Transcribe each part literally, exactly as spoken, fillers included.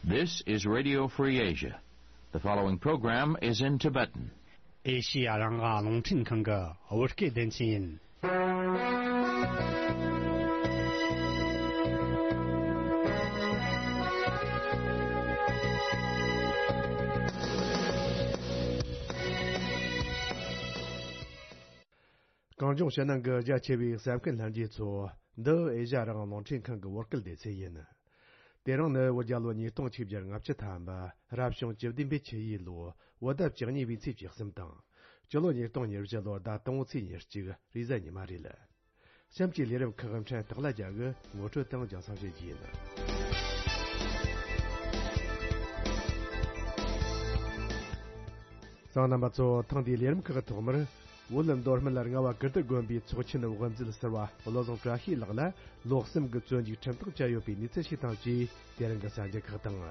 This is Radio Free Asia. The following program is in Tibetan. ཨེ་ཤི་ཡ་རང་དབང་རླུང་འཕྲིན་ཁང་གི་བོད་སྐད་སྡེ་ཚན་ཡིན། གངས་ལྗོངས་ཕྱི་ནང་གི་རྒྱ་ཆེ་བའི་གསན་མཁན་ལྷན་རྒྱས་ཚོ། འདི་ཨེ་ཤ་ཡ་རང་དབང་རླུང་འཕྲིན་ཁང་གི་བོད་སྐད་སྡེ་ཚན་ཡིན། དེ་རིང་ནི་བོད་རྒྱལ་ལོ་ཉིས་སྟོང་ཆིག་བརྒྱ་ལྔ་བཅུ་ཐམ་པ། རབ་བྱུང་བཅུ་བདུན་པའི་ཆུ་ཡོས་ལོ། བོད་ཟླ་བཅུ་གཉིས་པའི་ཚེས་བཅུ་གསུམ་དང་། སྤྱི་ལོ་ཉིས་སྟོང་ཉེར་བཞི་ལོ་ཟླ་དང་པོའི་ཚེས་ཉེར་གཅིག་རེས་གཟའ་ཉི་མ་རེད། གཤམ་གྱི་ལས་རིམ་ཁག་ཕྲན་ཐོག་ལ་རྒྱ་གི་ངོ་སྤྲོད་དང་རྒྱང་སྲིང་བྱེད་རྒྱུ་ཡིན། གསན་མཁན་རྣམ་པ་ཚོ། ཐེངས་འདིའི་ལས་རིམ་ཁག་གི་ཐོག་མར། བོད་མདོ་སྨད་རྔ་བ་ཀིརྟི་དགོན་པའི་ཚོགས་ཆེན་དབུ་མཛད་ཟུར་པ་བློ་བཟང་བཀྲ་ཤིས་ལགས་ལ་ལོ་གསུམ་གྱི་བཙོན་འཇུག་ཁྲིམས་ཐག་བཅད་ཡོད་པའི་གནས་ཚུལ་ཞིག་དང་བཅས། དེ་རིང་གི་གསར་འགྱུར་ཁག་དང་།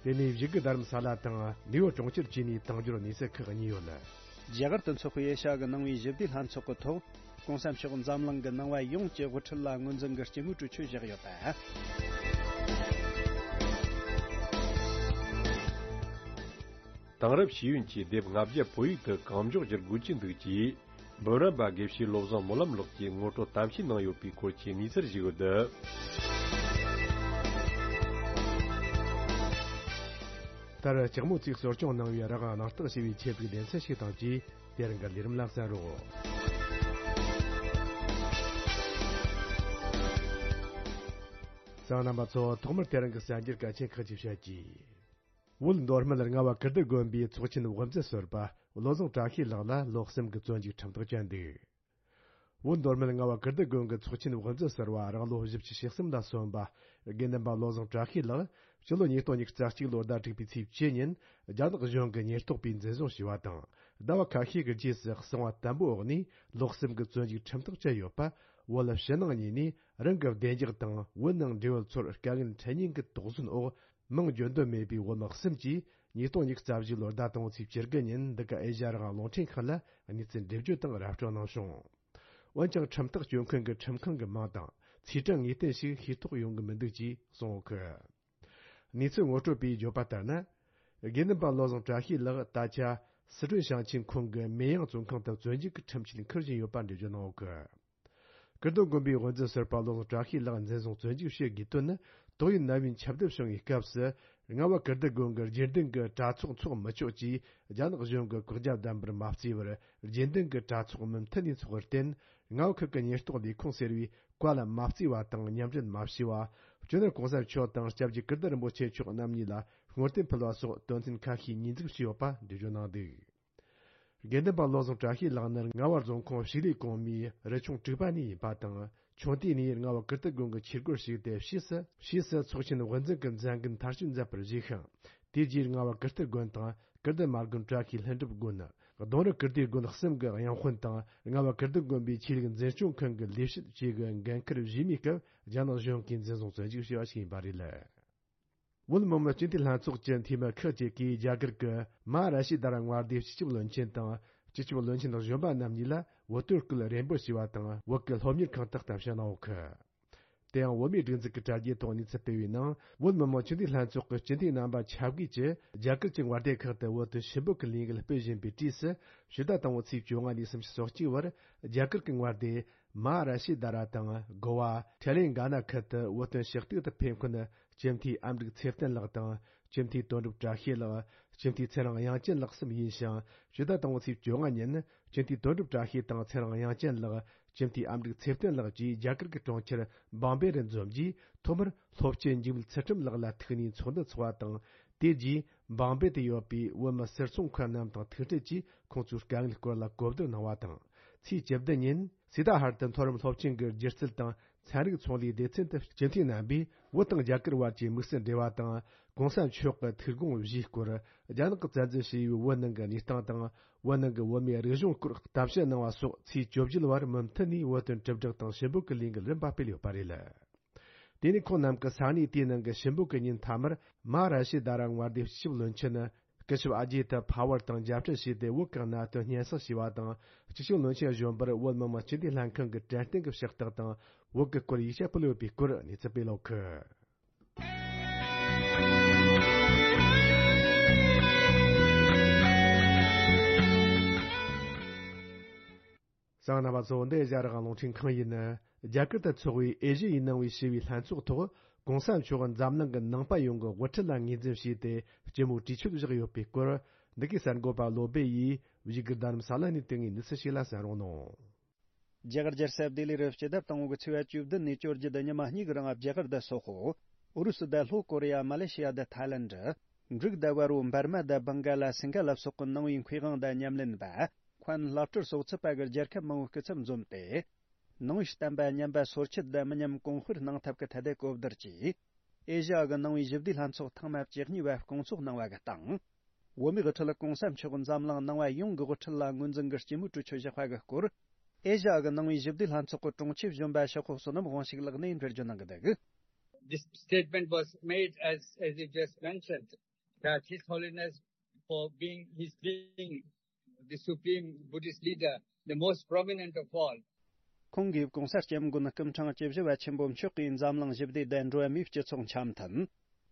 དེ་ནས་བཞུགས་སྒར་རྡ་རམ་ས་ལ་དང་ནིའུ་ཡོག་གྲོང་ཁྱེར་བཅས་ནས་དང་འབྱོར་གནས་ཚུལ་ཁག་གཉིས་ཡོད། རྒྱ་གར་དུ་འཚོགས་པའི་ཨེ་ཤ་ཡ་གི་ནང་པའི་ཞི་བདེའི་ལྷན་ཚོགས་ཀྱི་ཐོག་༸གོང་ས་མཆོག་འཛམ་གླིང་གི་ནང་པ་ཡོངས་ཀྱི་དབུ་ཁྲིད་ལ་ངོས་འཛིན་གྱི་སྐྱེ་དངོས་གྲོས་ཆོད་བཞག་ཡོད་པ། དེང་རབས་ཤེས་ཡོན་གྱི་དེབ་ལྔ་བརྒྱ་བོད་ཡིག་ཏུ་གང་མགྱོགས་བསྒྱུར་དགོས་ཀྱི་འདུག་ཅེས། འབུམ་རམས་པ་དགེ་བཤེས་བློ་བཟང་སྨོན་ལམ་ལགས་ཀྱིས་ངོ་སྤྲོད་གཏམ་བཤད་གནང་ཡོད་པའི་སྐོར་གྱི་གནས་ཚུལ་ཞིག་ཡོད། མཐར་ལྕགས་མོ་བརྩིགས་གསོ་སྐྱོང་གནང་བའི་རང་དབང་གནང་སྟངས་ཞེས་པའི་ཆེད་དུ་སྡེ་ཚན་ཞིག་དང་བཅས། དེ་རིང་གི་ལས་རིམ་ལ་གསན་རོགས། གསན་མཁན་རྣམ་པ་ཚོ། ཐོག་མར་དེ་རིང་གི་གསར་འགྱུར་གལ་ཆེན་ཁག་ཅིག་བཤད་རྒྱུ། བོད་མདོ་སྨད་རྔ་བ་ཀིརྟི་དགོན་པའི་ཚོགས་ཆེན་དབུ་མཛད་ཟུར་པ་བློ་བཟང་བཀྲ་ཤིས་ལགས་ལ་ལོ་གསུམ་གྱི་བཙོན་འཇུག་ཁྲིམས་ཐག་བཅད་འདུག། བོད་མདོ་སྨད་རྔ་བ་ཀིརྟི་དགོན་གྱི་ཚོགས་ཆེན་དབུ་མཛད་ཟུར་པ་རང་ལོ་བཞི་བཅུ་ཞེ་གསུམ་ལ་སོན་པ་དགེ་འདུན་པ་བློ་བཟང་བཀྲ་ཤིས་ལགས་སྤྱི་ལོ་ཉིས་སྟོང་ཉི་ཤུ་རྩ་གཅིག་ལོ་ཟླ་དྲུག་པའི་ཚེས་བཅུ་ཉིན་རྒྱ་ནག་གཞུང་གིས་ཉེན་རྟོག་པས་འཛིན་བཟུང་བྱས་པ་དང་། ཟླ་བ་ཁ་ཤས་ཀྱི་རྗེས་སུ་གསང་བ་དམ་པོའི་འོག་ནས་ལོ་གསུམ་གྱི་བཙོན་འཇུག་ཁྲིམས་ཐག་བཅད་ཡོད་པ། བོད་ཕྱི་ནང་གཉིས་ནས་རང་གི་བདེ་འཇགས་དང་བོད་ནང་འབྲེལ་ཡོད་ཚོར་དཀའ་ངལ་འཕྲད་ཉེན་གྱི་དོགས་ཟོན་འོག་མིང་བརྗོད་འདོད་མེད་པའི་བོད་མི་གསུམ་གྱིས་ཉིས་སྟོང་ཉི་ཤུ་རྩ་བཞི་ལོར་ཟླ་དང་པོའི་ཚེས་བཅུ་དགུ་ཉིན་འདི་ག་ཨེ་ཤ་ཡ་རང་དབང་རླུང་འཕྲིན་ཁང་ལ་གནས་ཚུལ་འགྲེམས་བརྗོད་དང་ར་སྤྲོད་གནང་བྱུང་། འོན་ཀྱང་ཁྲིམས་ཐག་གཅོད་མཁན་གྱི་ཁྲིམས་ཁང་གི་མིང་དང་ཚེས་གྲངས་ངེས་གཏན་ཞིག་ཤེས་རྟོགས་ཡོང་གི་མི་འདུག་ཅེས་གསུངས་ཡོད་གི། གནས་ཚུལ་ངོ་སྤྲོད་པས་བརྗོད་པ་ལྟར་ན། དགེ་འདུན་པ་བློ་བཟང་བཀྲ་ཤིས་ལགས་ད་ཆ་སི་ཁྲོན་ཞིང་ཆེན་ཁོངས་ཀྱི་མེ་ཡང་བཙོན་ཁང་དུ་བཙོན་འཇུག་གི་ཁྲིམས་ཆད་འཁུར་བཞིན་ཡོད་པ་འགྲེལ་བརྗོད་གནང་ཡོད་གི། ཀིརྟི་དགོན་པའི་དབུ་མཛད་ཟུར་པ་བློ་བཟང་བཀྲ་ཤིས་ལགས་འཛིན་བཟུང་བཙོན་འཇུག་བྱེད་དགོས་དོན་ནི། ཏོག་དབྱིབས་ནད་ཡམས་ཁྱབ་གདལ་བྱུང་བའི་སྐབས་སུ། རྔ་བ་ཀིརྟི་དགོན་གྱི་རྗེས་མཐུན་གྱི་གྲྭ་ཚོགས་འཚོགས་མི་ཆོག་ཅེས་རྒྱ་ནག་གཞུང་གིས་བཀག་རྒྱ་བསྡམས་པར་མ་བརྩིས་པར། རྗེས་མཐུན་གྱི་གྲྭ་ཚོགས་མུ་མཐུད་ནས་འཚོགས་པར་བརྟེན། རྔ་བ་ཁུལ་གྱི་ཉེན་རྟོག་ལས་ཁུངས་ཟེར་བས་བཀའ་ལ་མ་བརྩིས་པ་དང་མཉམ་འབྲེལ་མ་བྱས་པ། སྤྱི་ནོར་གོང་ས་མཆོག་དང་སྐྱབས་རྗེ་ཀིརྟི་རིན་པོ་ཆེ་མཆོག་རྣམ་གཉིས་ལ་བསྔོ་རྟེན་ཕུལ་བ་སོགས་དོན་ཚན་ཁ་ཤས་ཉེས་འཛུགས་བྱས་ཡོད་པ་འགྲེལ་བརྗོད་གནང་འདུག། དགེ་འདུན་པ་བློ་བཟང་བཀྲ་ཤིས་ལགས་ནི་རྔ་བ་རྫོང་ཁོངས་ཕྱུགས་ལས་གོང་མའི་རུ་ཆུང་དྲུག་པ་ནས་ཡིན་པ་དང་། ཆུང་དུས་ནས་རྔ་བ་ཀིརྟི་དགོན་གྱི་ཆོས་སྒོར་ཞུགས་ཏེ། ཕྱིས་སུ་ཕྱིས་སུ་ཚོགས་ཆེན་དབུ་འཛིན་གྱི་མཛད་འགན་མཐར་སྐྱེལ་མཛད་པར་བཞེས་ཤིང་། དེ་རྗེས་རྔ་བ་ཀིརྟི་དགོན་དང་ཀིརྟི་མ་དགོན་བཀྲ་ཤིས་ལྷུན་གྲུབ་དགོན། གདུང་རི་ཀིརྟིའི་དགོན་གསུམ་གྱི་དབྱངས་དཔོན་དང་། རྔ་བ་ཀིརྟི་དགོན་པའི་ཆོས་ལུགས་འཛིན་སྐྱོང་ཁང་གི་ལས་བྱེད་བཅས་ཀྱི་འགན་འཁུར་བཞེས་མིའི་སྐབས་རྒྱ་ནག་གཞུང་གིས་འཛིན་བཟུང་བཙོན་འཇུག་བྱས་པ་ཞིག་ཡིན་པ་རེད། བོད་མི་མང་སྤྱི་འཐུས་ལྷན་ཚོགས་ཀྱི་འཐུས་མི་ཁག་ཅིག་གིས་རྒྱ་གར་གྱི་མ་ཧཱ་ར་ཤི་དྷ་ར་མངའ་སྡེའི་སྤྱི་ཁྱབ་བློན་ཆེན་དང་། སྤྱི་ཁྱབ་བློན་ཆེན་གཞོན་པ་རྣམ་གཉིས་ལ་བོད་དོན་སྐུལ་རེ་འབོད་བྱས་པ་དང་། བོད་ཀྱི་སློབ་གཉེར་ཁང་དུ་གཏམ་བཤད་གནང་ཡོད་གི། དེ་ཡང་བོད་མིའི་སྒྲིག་འཛུགས་ཀྱི་དྲ་རྒྱའི་ཐོག་གནས་ཚུལ་སྤེལ་བའི་ནང་། བོད་མི་མང་སྤྱི་འཐུས་ལྷན་ཚོགས་ཀྱི་སྤྱི་འཐུས་རྣམ་པ་ཆ་བགོས་ཀྱིས་རྒྱ་གར་གྱི་མངའ་སྡེ་ཁག་ཏུ་བོད་དོན་ཞུ་འབོད་ཀྱི་ལས་འགུལ་སྤེལ་བཞིན་པའི་དུས་སུ། ཕྱི་ཟླ་དང་པོའི་ཚེས་བཅོ་ལྔ་ནས་སུམ་ཅུ་སོ་གཅིག་བར་རྒྱ་གར་གྱི་མངའ་སྡེ་མ་ཧཱ་ར་ཤི་དྷ་ར་དང་གོ་བ་ཐེ་ལེང་ག་ན་ཁུལ་དུ་བོད་དོན་ཞུ་གཏུག་ཏུ་ཕེབས་མཁན་སྤྱི་འཐུས་ཨ་མྲུག་ཚེ་བརྟན་ལགས་དང་། སྤྱི་འཐུས་དོན་གྲུབ་བཀྲ་ཤིས་ལགས། སྤྱི་འཐུས་ཚེ་རིང་དབྱངས་ཅན་ལགས་གསུམ་ཡིན་ཞིང་། ཕྱི་ཟླ་དང་པོའི་ཚེས་བཅོ་ལྔ་ཉིན་སྤྱི་འཐུས་དོན་གྲུབ་བཀྲ་ཤིས་དང་ཚེ་རིང་དབྱངས་ཅན་ལགས། སྤྱི་འཐུས་ཨ་མྲུག་ཚེ་བརྟན་ལགས་བཅས་རྒྱ་གར་གྱི་གྲོང་ཁྱེར་བང་བེ་རུ་འཛོམས་རྗེས། ཐོག་མར་སློབ་སྤྱི་འཇིགས་མེད་ཚུལ་ཁྲིམས་ལགས་ལ་ཐུག་ནས་ཚོགས་འདུ་འཚོགས་པ་དང་། དེ་རྗེས་བང་བེ་དུ་ཡོད་པའི་བོད་མི་སེར་ཚོང་མཁན་རྣམས་དང་ཐུག་འཕྲད་ཀྱིས་ཁོང་ཚོའི་དཀའ་ངལ་སྐོར་ལ་གོ་བསྡུར་གནང་བ་དང་། ཚེས་བཅུ་བདུན་ཉིན་སི་ཏཱ་ཧར་དུ་མཐོ་རིམ་སློབ་ཆེན་གྱི་སྒྱུ་རྩལ་དང་ཚན་རིག་ཚོང་ལས་སྡེ་ཚན་དུ་སྤྱི་འཐུས་རྣམ་པས་བོད་དང་རྒྱ་གར་བར་གྱི་དམིགས་བསལ་འབྲེལ་བ་དང་། གོང་ས་མཆོག་གི་ཐུགས་དགོངས་བཞེས་སྐོར། རྒྱ་ནག་གིས་བཙན་འཛུལ་བྱས་པའི་བོད་ནང་གི་གནས་སྟངས་དང་། བོད་ནང་གི་བོད་མིའི་རིག་གཞུང་སྐོར་གཏམ་བཤད་གནང་བ་སོགས་ཚེས་བཅུ་བཞི་བར་མུ་མཐུད་ནས་བོད་དོན་དྲིལ་བསྒྲགས་དང་ཞུ་འབོད་ཀྱི་ལས་འགུལ་རིམ་པ་སྤེལ་ཡོད་པ་རེད། དེ་ནས་ཁོང་རྣམས་ཀྱིས་ས་གནས་དེའི་ནང་གི་ཞུ་འབོད་ཀྱི་ཉིན་མཐའ་མར་མ་ཧཱ་ར་ཤི་དྷ་ར་མངའ་སྡེའི་སྤྱི་ཁྱབ་བློན་ཆེན་ སྐུ་ཞབས་ཨ་ཇི་ཏ་ཕ་ཝར་དང་མཇལ་འཕྲད་བྱས་ཏེ། བོད་ཀྱི་གནད་དོན་སྙན་སེང་ཞུས་པ་དང་། སྤྱི་ཁྱབ་བློན་ཆེན་གཞོན་པར་བོད་མི་མང་སྤྱི་འཐུས་ལྷན་ཁང་གི་དྲན་རྟེན་གྱི་ཕྱག་རྟགས་དང་། བོད་ཀྱི་སྐོར་ཡིག་ཆ་ཕུལ་ཡོད་པའི་སྐོར་གནས་ཚུལ་སྤེལ་ཡོད་ཀི། གསན་མཁན་རྣམ་པ་ཚོ། འདི་ཨེ་ཤ་ཡ་རང་དབང་རླུང་འཕྲིན་ཁང་ཡིན། རྒྱ་གར་དུ་འཚོགས་པའི་ཨེ་ཤ་ཡའི་ནང་པའི་ཞི་བའི་ལྷན་ཚོགས་ཐོག་གོང་ས་མཆོག་འཛམ་གླིང་གི་ནང་པ་ཡོངས་ཀྱི་དབུ་ཁྲིད་ལ་ངོས་འཛིན་བྱས་ཏེ། སྤྱི་མོས་གྲོས་ཆོད་བཞག་ཡོད་པའི་སྐོར། འདི་གའི་གསར་འགོད་པ་བློ་སྦེ་ཡིས་བཞུགས་སྒར་རྡ་རམ་ས་ལ་ནས་དེ་སྔའི་གནས་ཚུལ་ཞིག་ལ་གསན་རོགས་གནང་། རྒྱ་གར་རྒྱལ་ས་ལྡི་ལི་རུ་སྤྱི་ཟླ་དང་པོ་གི་ཚེས་པ་བཅུ་བདུན་ནས་བཅོ་བརྒྱད་དུ་ཉི་མ་གཉིས་ཀྱི་རིང་རྒྱ་གར་དུ་སོག་པོ། ཨུ་རུ་སུ་དང་ལྷོ་ཀོ་རི་ཡ། མ་ལེ་ཤི་ཡ་དང་ཐའི་ལེནྡ། འབྲུག་དང་བལ་པོ། འབར་མ་དང་བྷང་ག་ལ། སིང་ག་ལ་སོགས་ཀྱི་ནང་པའི་མཁས་དབང་དང་ཉམས་ལེན་པ། མཁན་བླ་སྤྲུལ་སོགས་ཚུད་པ་གི་རྒྱལ་ཁབ་མང་པོའི་སྐུ་ཚབ་འཛོམས་ཏེ། ནང་པའི་བསྟན་པ་ཉམས་པ་སོར་ཆུད་དང་མི་ཉམས་གོང་སྤེལ་གནང་ཐབས་ཀྱི་ཐད་དེ་གོ་བསྡུར་གྱིས། ཨེ་ཤ་ཡ་གི་ནང་པའི་ཞི་བདེའི་ལྷན་ཚོགས་ཐེངས་མ་བཅུ་གཉིས་པ་སྐོང་ཚོགས་གནང་བ་གི་སྟེང་། བོད་མིའི་དབུ་ཁྲིད་གོང་ས་མཆོག་འཛམ་གླིང་ནང་པ་ཡོངས་ཀྱི་དབུ་ཁྲིད་ལ་ངོས་འཛིན་གྱི་སྤྱི་མོས་གྲོས་ཆོད་བཞག་པ་གི་སྐོར། ཨེ་ཤ་ཡ་གི་ནང་པའི་ཞི་བདེའི་ལྷན་ཚོགས་ཀྱི་དྲུང་ཆེ་གཞོན་པ་ཤོག་ཁོ་བསོད་ནམས་དབང་ཕྱུག་ལགས་ནས་འགྲེལ་བརྗོད་གནང་གི་འདུག This statement was made, as, as you just mentioned, that His Holiness, for being, his being the Supreme Buddhist leader, the most prominent of all, ཁོང་གིས་༸གོང་ས་༸སྐྱབས་མགོན་སྐུ་ཕྲེང་བཅུ་བཞི་པ་ཆེན་པོ་མཆོག་གིས་འཛམ་གླིང་ཞི་བདེ་དང་འགྲོ་བ་མིའི་སྤྱི་ཚོགས་འཆམ་མཐུན།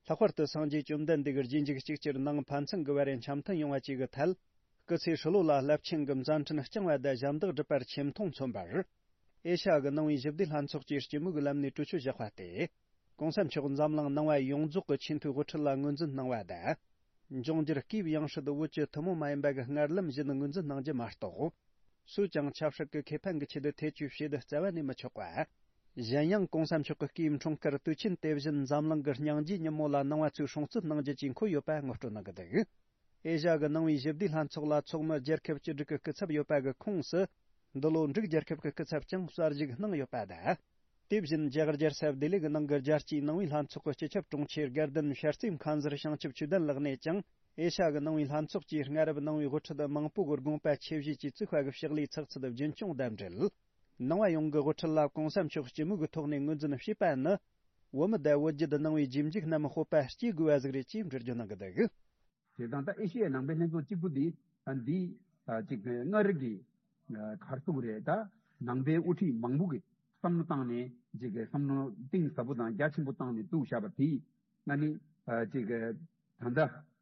ལྷག་པར་དུ་སངས་རྒྱས་བཅོམ་ལྡན་འདས་ཀྱི་རྗེས་འཇུག་གཅིག་གྱུར་ནང་ཕན་ཚུན་གྱི་བར་འཆམ་མཐུན་ཡོང་བ་བཅས་ཀྱི་ཐད། སྐུ་ཚེ་ཧྲིལ་པོ་ལ་རླབས་ཆེན་གྱི་མཛད་འཕྲིན་བསྐྱངས་པ་དང་ཞབས་འདེགས་བསྒྲུབས་པར་ཆེ་མཐོང་མཚོན་པར། ཨེ་ཤ་ཡ་གི་ནང་པའི་ཞི་བདེའི་ལྷན་ཚོགས་ཀྱིས་སྤྱི་མོས་ཀྱི་ལམ་ནས་གྲོས་ཆོད་བཞག་པ་སྟེ། ༸གོང་ས་མཆོག་འཛམ་གླིང་ནང་པ་ཡོངས་རྫོགས་ཀྱི་ཆེས་མཐོའི་དབུ་ཁྲིད་ལ་ངོས་འཛིན་གནང་བ་དང་། འབྱུང་འགྱུར་སྐུའི་ཡང་སྲིད་བོད་ཀྱི་ཐུན་མོང་མ་ཡིན་པ་གི་སྔར་ལམ་བཞིན་ངོས་འཛིན་གནང་རྒྱུ་མ་གཏོགས། སུས་ཀྱང་ཆབ་སྲིད་ཀྱི་ཁེ་ཕན་གྱི་ཆེད་དུ་ཐེ་བྱུས་བྱེད་རྩ་བ་ནས་མི་ཆོག་པ། གཞན་ཡང་༸གོང་ས་མཆོག་གི་སྐུའི་འཁྲུངས་སྐར་དུས་ཆེན་དེ་བཞིན་འཛམ་གླིང་གི་སྙིང་རྗེའི་ཉིན་མོ་ལ་ནང་པ་ཚོས་སྲུང་བརྩི་གནང་རྒྱུ་བཅས་འཁོད་ཡོད་པ་ངོ་སྤྲོད་གནང་གི་འདུག་ཨེ་ཤ་ཡ་གི་ནང་པའི་ཞི་བདེའི་ལྷན་ཚོགས་ལ་ཚོགས་མི་རྒྱལ་ཁབ་བཅུ་དྲུག་གི་སྐུ་ཚབ་ཡོད་པ་གི་ཁོངས་སུ། འདི་ལོ་འབྲུག་རྒྱལ་ཁབ་ཀྱི་སྐུ་ཚབ་ཀྱང་གསར་ཞུགས་གནང་ཡོད་པ་དང་། དེ་བཞིན་རྒྱ་གར་རྒྱལ་ས་ལྡི་ལི་གི་ནང་གི་རྒྱལ་སྤྱིའི་ནང་པའི་ལྷན་ཚོགས་ཀྱི་སྤྱི་ཁྱབ་དྲུང་ཆེ་དགའ་ལྡན་ཤར་རྩེ་མཁན་ཟུར་བྱང་ཆུབ་ཆོས་ལྡན་ལགས་ནས་ཀྱང་། ཨེ་ཤ་ཡ་གི་ནང་པའི་ལྷན་ཚོགས་ཀྱིས་སྔ་རབས་ནང་པའི་དབུ་ཁྲིད་མང་པོ་གི་དགོངས་པ་ཆེ་བཞེས་ཀྱིས་བཙུགས་པ་གི་ཕྱག་ལས་ཚགས་ཚུད་རྒྱུན་འཁྱོངས་དང་འབྲེལ། ནང་པ་ཡོངས་ཀྱི་དབུ་ཁྲིད་ལ་༸གོང་ས་མཆོག་སྤྱི་མོས་ཀྱི་ཐོག་ནས་ངོས་འཛིན་བྱས་པ་ནི། བོད་མི་དང་བོད་བརྒྱུད་ནང་པའི་རྗེས་འཇུག་རྣམས་སྤོབས་པ་སྐྱེ་དགོས་པ་ཟིག་རེད་ཅེས་འགྲེལ་བརྗོད་གནང་གི་འདུག་བྱས་ཙང་ད་ཨེ་ཤི་ཡའི་ནང་པའི་ལྷན་ཚོགས་གཅིག་པུ་འདི་ཨ་འདི་ཨ་ཅིག་སྔར་གྱི་ཨ་ག་རེ་ཟེར་དགོས་རེད། ད་ནང་པའི་དབུ་ཁྲིད་མང་པོ་གིས་བསམ་བློ་བཏང་ནས་ཅིག་བསམ་བློ་གཏིང་ཟབ་པོ་དང་རྒྱ་ཆེན་པོ་བཏང་ནས་བཙུགས་བཞག་པ་དེས་ང་ནི་ཨ་ཅིག་ད་ལྟ་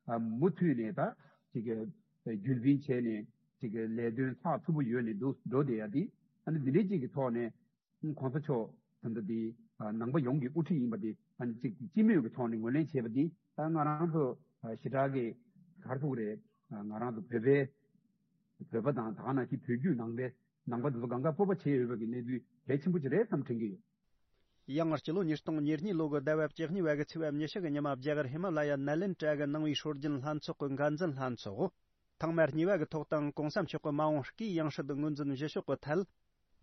ཨ་མུ་མཐུད་ནས་ད་ཅིག་རྒྱུན་འཛིན་བྱས་ནས་ཅིག་ལས་དོན་ཚགས་ཚུད་པོ་ཡོད་ནས་འདུག་འགྲོ་བསྡད་ཡ་དེ་ཨ་ནི་འདི་འདྲའི་ཅིག་གི་ཐོག་ནས། གོང་ས་མཆོག་ད་ལྟ་འདི་ནང་པ་ཡོངས་ཀྱི་དབུ་ཁྲིད་ཡིན་པ་འདི་ཨ་ནི་གཅིག་སྤྱི་མོས་ཀྱི་ཐོག་ནས་ངོས་ལེན་བྱས་པ་འདི་ད་ང་རང་ཚོ་ཞེ་དྲག་གི་ག་རེ་ཟེར་དགོས་རེད། ང་རང་ཚོ་བོད་པའི་བོད་པ་དང་ད་ག་ནང་བཞིན་བོད་བརྒྱུད་ནང་པའི་ནང་པ་འདི་ཚོ་གང་ག་སྤོབས་པ་བྱེད་འོས་པ་གི་གནས་ཚུལ་གལ་ཆེན་པོ་ཅིག་རེད་བསམ་དྲན་གྱི་ཡོད། ཡང་སྤྱི་ལོ་ཉིས་སྟོང་ཉེར་གཉིས་ལོ་གི་ཟླ་བ་བཅུ་གཉིས་པ་གི་ཚེས་པ་ཉི་ཤུ་གི་ཉི་མ་རྒྱ་གར་ཧི་མ་ལ་ཡ་ནཱ་ལེནྡྲ་གི་ནང་པའི་སྲོལ་རྒྱུན་ལྷན་ཚོགས་ཀྱི་འགན་འཛིན་ལྷན་ཚོགས། ཐེངས་མ་གཉིས་པ་གི་ཐོག་དང་༸གོང་ས་མཆོག་གི་མ་འོངས་སྐུའི་ཡང་སྲིད་ངོས་འཛིན་བཞི་ཤོག་གི་ཐད།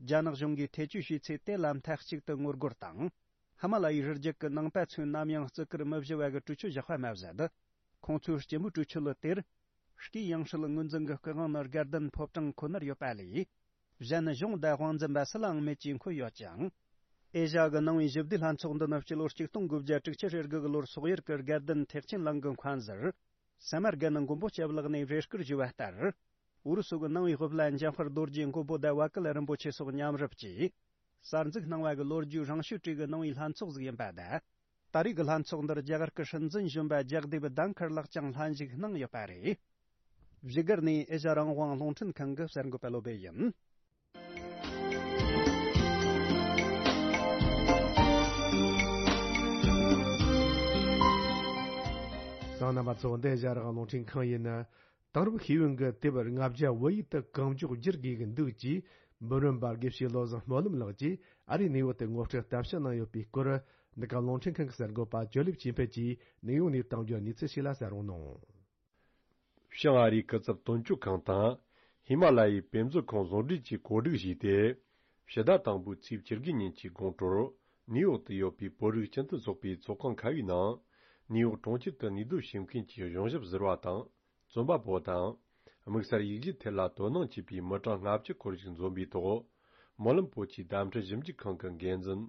རྒྱ་ནག་གཞུང་གིས་ཐེ་བྱུས་བྱས་ཚེ་དེ་ལ་མཐའ་གཅིག་ཏུ་ངོ་རྒོལ་དང་། ཧི་མ་ལ་ཡའི་རི་རྒྱུད་ཀྱི་ནང་པ་ཚོས་ནམ་ཡང་བརྩི་བཀུར་མི་བྱེད་པ་གི་གྲོས་ཆོད་བཞག་པ་མ་ཟད། ཁོང་ཚོའི་སྤྱི་མོས་གྲོས་ཆོད་ལ་དེར། སྐུའི་ཡང་སྲིད་ངོས་འཛིན་གྱི་སྐུ་དབང་ནི་དགའ་ལྡན་ཕོ་བྲང་ཁོ་ནར་ཡོད་པ་ལས། གཞན་གཞུང་དང་དབང་འཛིན་པ་སུ་ལའང་མེད་ཅེས་འཁོད་ཡོད་ཅིང་། ཨེ་ཤ་ཡ་གི་ནང་པའི་ཞི་བདེའི་ལྷན་ཚོགས་འདི་ནི་སྤྱི་ལོ་ཆིག་སྟོང་དགུ་བརྒྱ་དྲུག་ཅུ་རེ་དགུ་གི་ལོར་སོག་ཡུལ་གྱི་དགའ་ལྡན་ཐེག་ཆེན་གླིང་གི་མཁན་ཟུར། ས་མར་གན་མགོན་པོ་སྐྱབས་ལགས་ནས་རེ་སྐུལ་ཞུས་པ་ལྟར། ཨུ་རུ་སུ་གི་ནང་པའི་སློབ་གླིང་འཇམ་དཔལ་རྡོ་རྗེ་མགོན་པོ་དང་བ་ཀིལ་རིན་པོ་ཆེ་སོགས་མཉམ་རུབ་ཀྱིས་གསར་འཛུགས་གནང་བ་གི་ལོ་རྒྱུས་རིང་ཤོས་གྲས་ཀྱི་ནང་པའི་ལྷན་ཚོགས་ཟིག་ཡིན་པ་དང་། ད་རེས་ཀྱི་ལྷན་ཚོགས་འདིར་རྒྱ་གར་གྱི་སྲིད་འཛིན་གཞོན་པ་ཇག་དེབ་དྷན་ཁར་ལགས་ཀྱང་ལྷན་ཞུགས་གནང་ཡོད་པ་རེད། བཞུགས་སྒར་ནས་ཨེ་ཤ་ཡ་རང་དབང་རླུང་འཕྲིན་ཁང་གི་གསར་འགོད་པ་བློ་སྦེ་ཡིན། གསན་མཁན་རྣམ་པ་ཚོ། འདི་ཨེ་ཤ་ཡ་རང་དབང་རླུང་འཕྲིན་ཁང་ཡིན། དེང་རབས་ཤེས་ཡོན་གྱི་དེབ་ལྔ་བརྒྱ་བོད་ཡིག་ཏུ་གང་མགྱོགས་བསྒྱུར་དགོས་ཀྱི་འདུག་ཅེས་འབུམ་རམས་པ་དགེ་བཤེས་བློ་བཟང་སྨོན་ལམ་ལགས་ཀྱིས་ཨ་རིའི་ནིའུ་ཡོག་ཏུ་ངོ་སྤྲོད་གཏམ་བཤད་གནང་ཡོད་པའི་སྐོར། འདི་ག་རླུང་འཕྲིན་ཁང་གི་གསར་འགོད་པ་ཇོ་ལེབ་ཅིན་ཕེ་ཀྱིས་ནིའུ་ཡོག་ནས་བཏང་རྒྱུ། གནས་ཚུལ་ཞིག་ལ་གསན་རོགས་གནང་། བྱང་ཨ་རིའི་སྐུ་ཚབ་དོན་གཅོད་ཁང་དང་། ཧི་མ་ལ་ཡའི་དཔེ་མཛོད་ཁང་ཟུང་འབྲེལ་གྱིས་གོ་སྒྲིག་བྱས་ཏེ། ཕྱི་ཟླ་དང་པོའི་ཚེས་བཅུ་དགུ་ཉིན་གྱི་དགོང་དྲོར། ནིའུ་ཡོག་ཏུ་ཡོད་པའི་བོད་རིགས་སྤྱི་མཐུན་ཚོགས་པའི་ཚོགས་ཁང་ཁ་པའི་ནང་། ནིའུ་ཡོག་གྲོང་ཁྱེར་དུ་གནས་སྡོད་བྱེད་མཁན་གྱི་གཞུང་ཞབས་ཟུར་པ་དང་། རྩོམ་པ་པོ་དང་། དམིགས་བསལ་ཡིག་གཞུག་ཐད་ལ་དོ་སྣང་བྱེད་པའི་མི་གྲངས་ལྔ་བཅུ་སྐོར་ཞིག་འཛོམས་པའི་ཐོག། སྨོན་ལམ་བོད་ཀྱི་བརྡ་འཕྲིན་ཞིབ་འཇུག་ཁང་གི་འགན་འཛིན།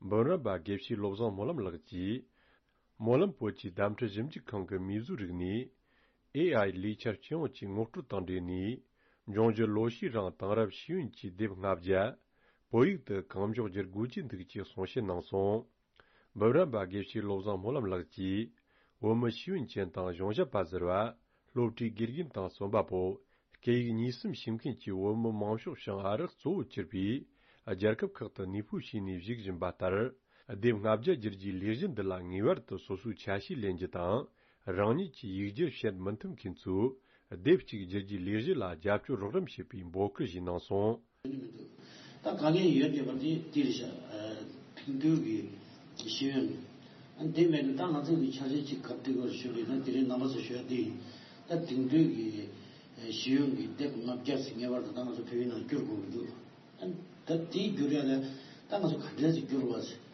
འབུམ་རམས་པ་དགེ་བཤེས་བློ་བཟང་སྨོན་ལམ་ལགས་ཀྱིས། སྨོན་ལམ་བོད་ཀྱི་བརྡ་འཕྲིན་ཞིབ་འཇུག་ཁང་གི་མིས་བཟོས་རིག་གནས། ཨེ་ཨའི་ལས་འཆར་སྤྱི་ཡོངས་ཀྱི་ངོ་སྤྲོད་དང་འབྲེལ་ནས། འབྱུང་འགྱུར་ལོ་ཤས་རིང་དེང་རབས་ཤེས་ཡོན་གྱི་དེབ་ལྔ་བརྒྱ་བོད་ཡིག་ཏུ་གང་མགྱོགས་བསྒྱུར་དགོས་ཀྱི་འདུག་ཅེས་གསུང་བཤད་གནང་སོང་། འབུམ་རམས་པ་དགེ་བཤེས་བློ་བཟང་སྨོན་ལམ་ལགས་ཀྱིས། བོད་མི་ཤེས་ཡོན་ཅན་དང་གཞུང་ཞབས་པ་ཟུར་པ། སློབ་གྲྭའི་དགེ་རྒན་དང་རྩོམ་པ་པོ། སྐད་ཡིག་གཉིས་གསུམ་ཤེས་མཁན་གྱི་བོད་མི་མང་ཤོས་བྱང་ཨ་རི་གཙོ་བོ་གྱུར་པའི་རྒྱལ་ཁབ་ཁག་ཏུ་གནས་སྤོས་བྱས་ནས་བཞུགས་བཞིན་པ་ལྟར། དེབ་ལྔ་བརྒྱ་བསྒྱུར་རྒྱུའི་ལས་གཞི་འདི་ལ་ངེས་པར་དུ་སོ་སོའི་ཆ་ཤས་ལེན་རྒྱུ་དང་། རང་ཉིད་ཀྱི་ཡིག་སྒྱུར་བྱེད་མི་ཐུབ་མཁན་ཚོས། དེབ་གཅིག་བསྒྱུར་རྒྱུའི་ལས་གཞི་ལ་རྒྱབ་སྐྱོར་རོགས་རམ་བྱེད་པའི་འབོད་སྐུལ་ཞིག་གནང་སོང་། ད་དཀའ་ངལ་ཡོད་བསྡད་པ་དེ་དེ་རེད་ཤག་དེང་དུས་ཀྱི་ཤེས་ཡོན། ཨ་དེ་མེད་ན་ད་ང་ཚོ་གི་འཆར་གཞི་གཅིག་ག་དུས་སྐོར་ཞུ་དགོས་ན། དེ་རིང་རྣམ་པ་ཚོ་ཞུ་ཡ་དེ་ཡིན། ད་དེང་དུས་ཀྱི་ཤེས་ཡོན་གྱི་དེབ་ལྔ་བརྒྱ་ཟིན་ངེས་པར་དུ་ད་ང་ཚོ་བོད་ཡིག་ནང་བསྒྱུར་དགོས་ཀྱི་འདུག་ཨ་ད་དེ་བསྒྱུར་ཡ་ལ་ད་ང་ཚོ་ག་འདྲས་སེ་བསྒྱུར་བ་ཟེར།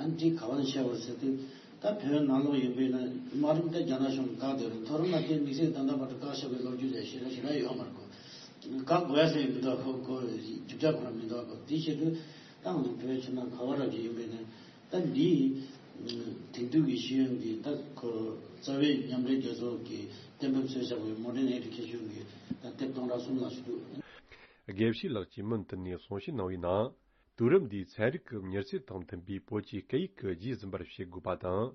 ཨ་འདི་ག་བ་ནས་བཤད་པ་ཟེར་དུས། ད་བོད་ནང་ལོགས་ཡིན་པས་ན་མ་རུང་ད་རྒྱ་ནག་གཞུང་གིས་བཀག་སྡོད་རེད། མཐོ་རིམ་ལ་དེ་དམིགས་བསལ་ད་ལྟ་བར་དུ་བཀག་བཞག་པའི་ལོ་རྒྱུས་ལས་ཞེ་དྲག་ཞེ་དྲག་ཡོད་མ་རེད་གོ། བཀག་དགོས་ཡ་ཟེར་མི་འདུག་གོ། གོ་རྒྱུ་ཆ་ཁོ་རང་མི་འདུག་གོ། དེ་བྱེད་དུས་ད་ང་ཚོ་བོད་ཕྱི་ནང་ག་བ་ར་གི་ཡིན་པས་ན། ད་འདི་དེང་དུས་ཀྱི་ཤེས་ཡོན་གྱི་ད་ཁོ་རྩ་བའི་མཉམ་འབྲེལ་རྒྱལ་ཚོགས་ཀྱི་གཏན་འབེབས་བཟོས་བཞག་པའི་Modern Education གྱི་ད་དེབ་སྟོང་ཕྲག་གསུམ་ལ་ཞུ་འདུག་དགེ་བཤེས་ལགས་ཀྱིས་མུ་མཐུད་ནས་གསུང་བཤད་གནང་བའི་ནང་། དུས་རབས་འདིའི་ཚན་རིག་གི་མྱུར་ཚད་དང་མཐུན་པའི་བོད་ཀྱི་སྐད་ཡིག་གི་རྗེས་ཟིན་པར་བྱེད་དགོས་པ་དང་།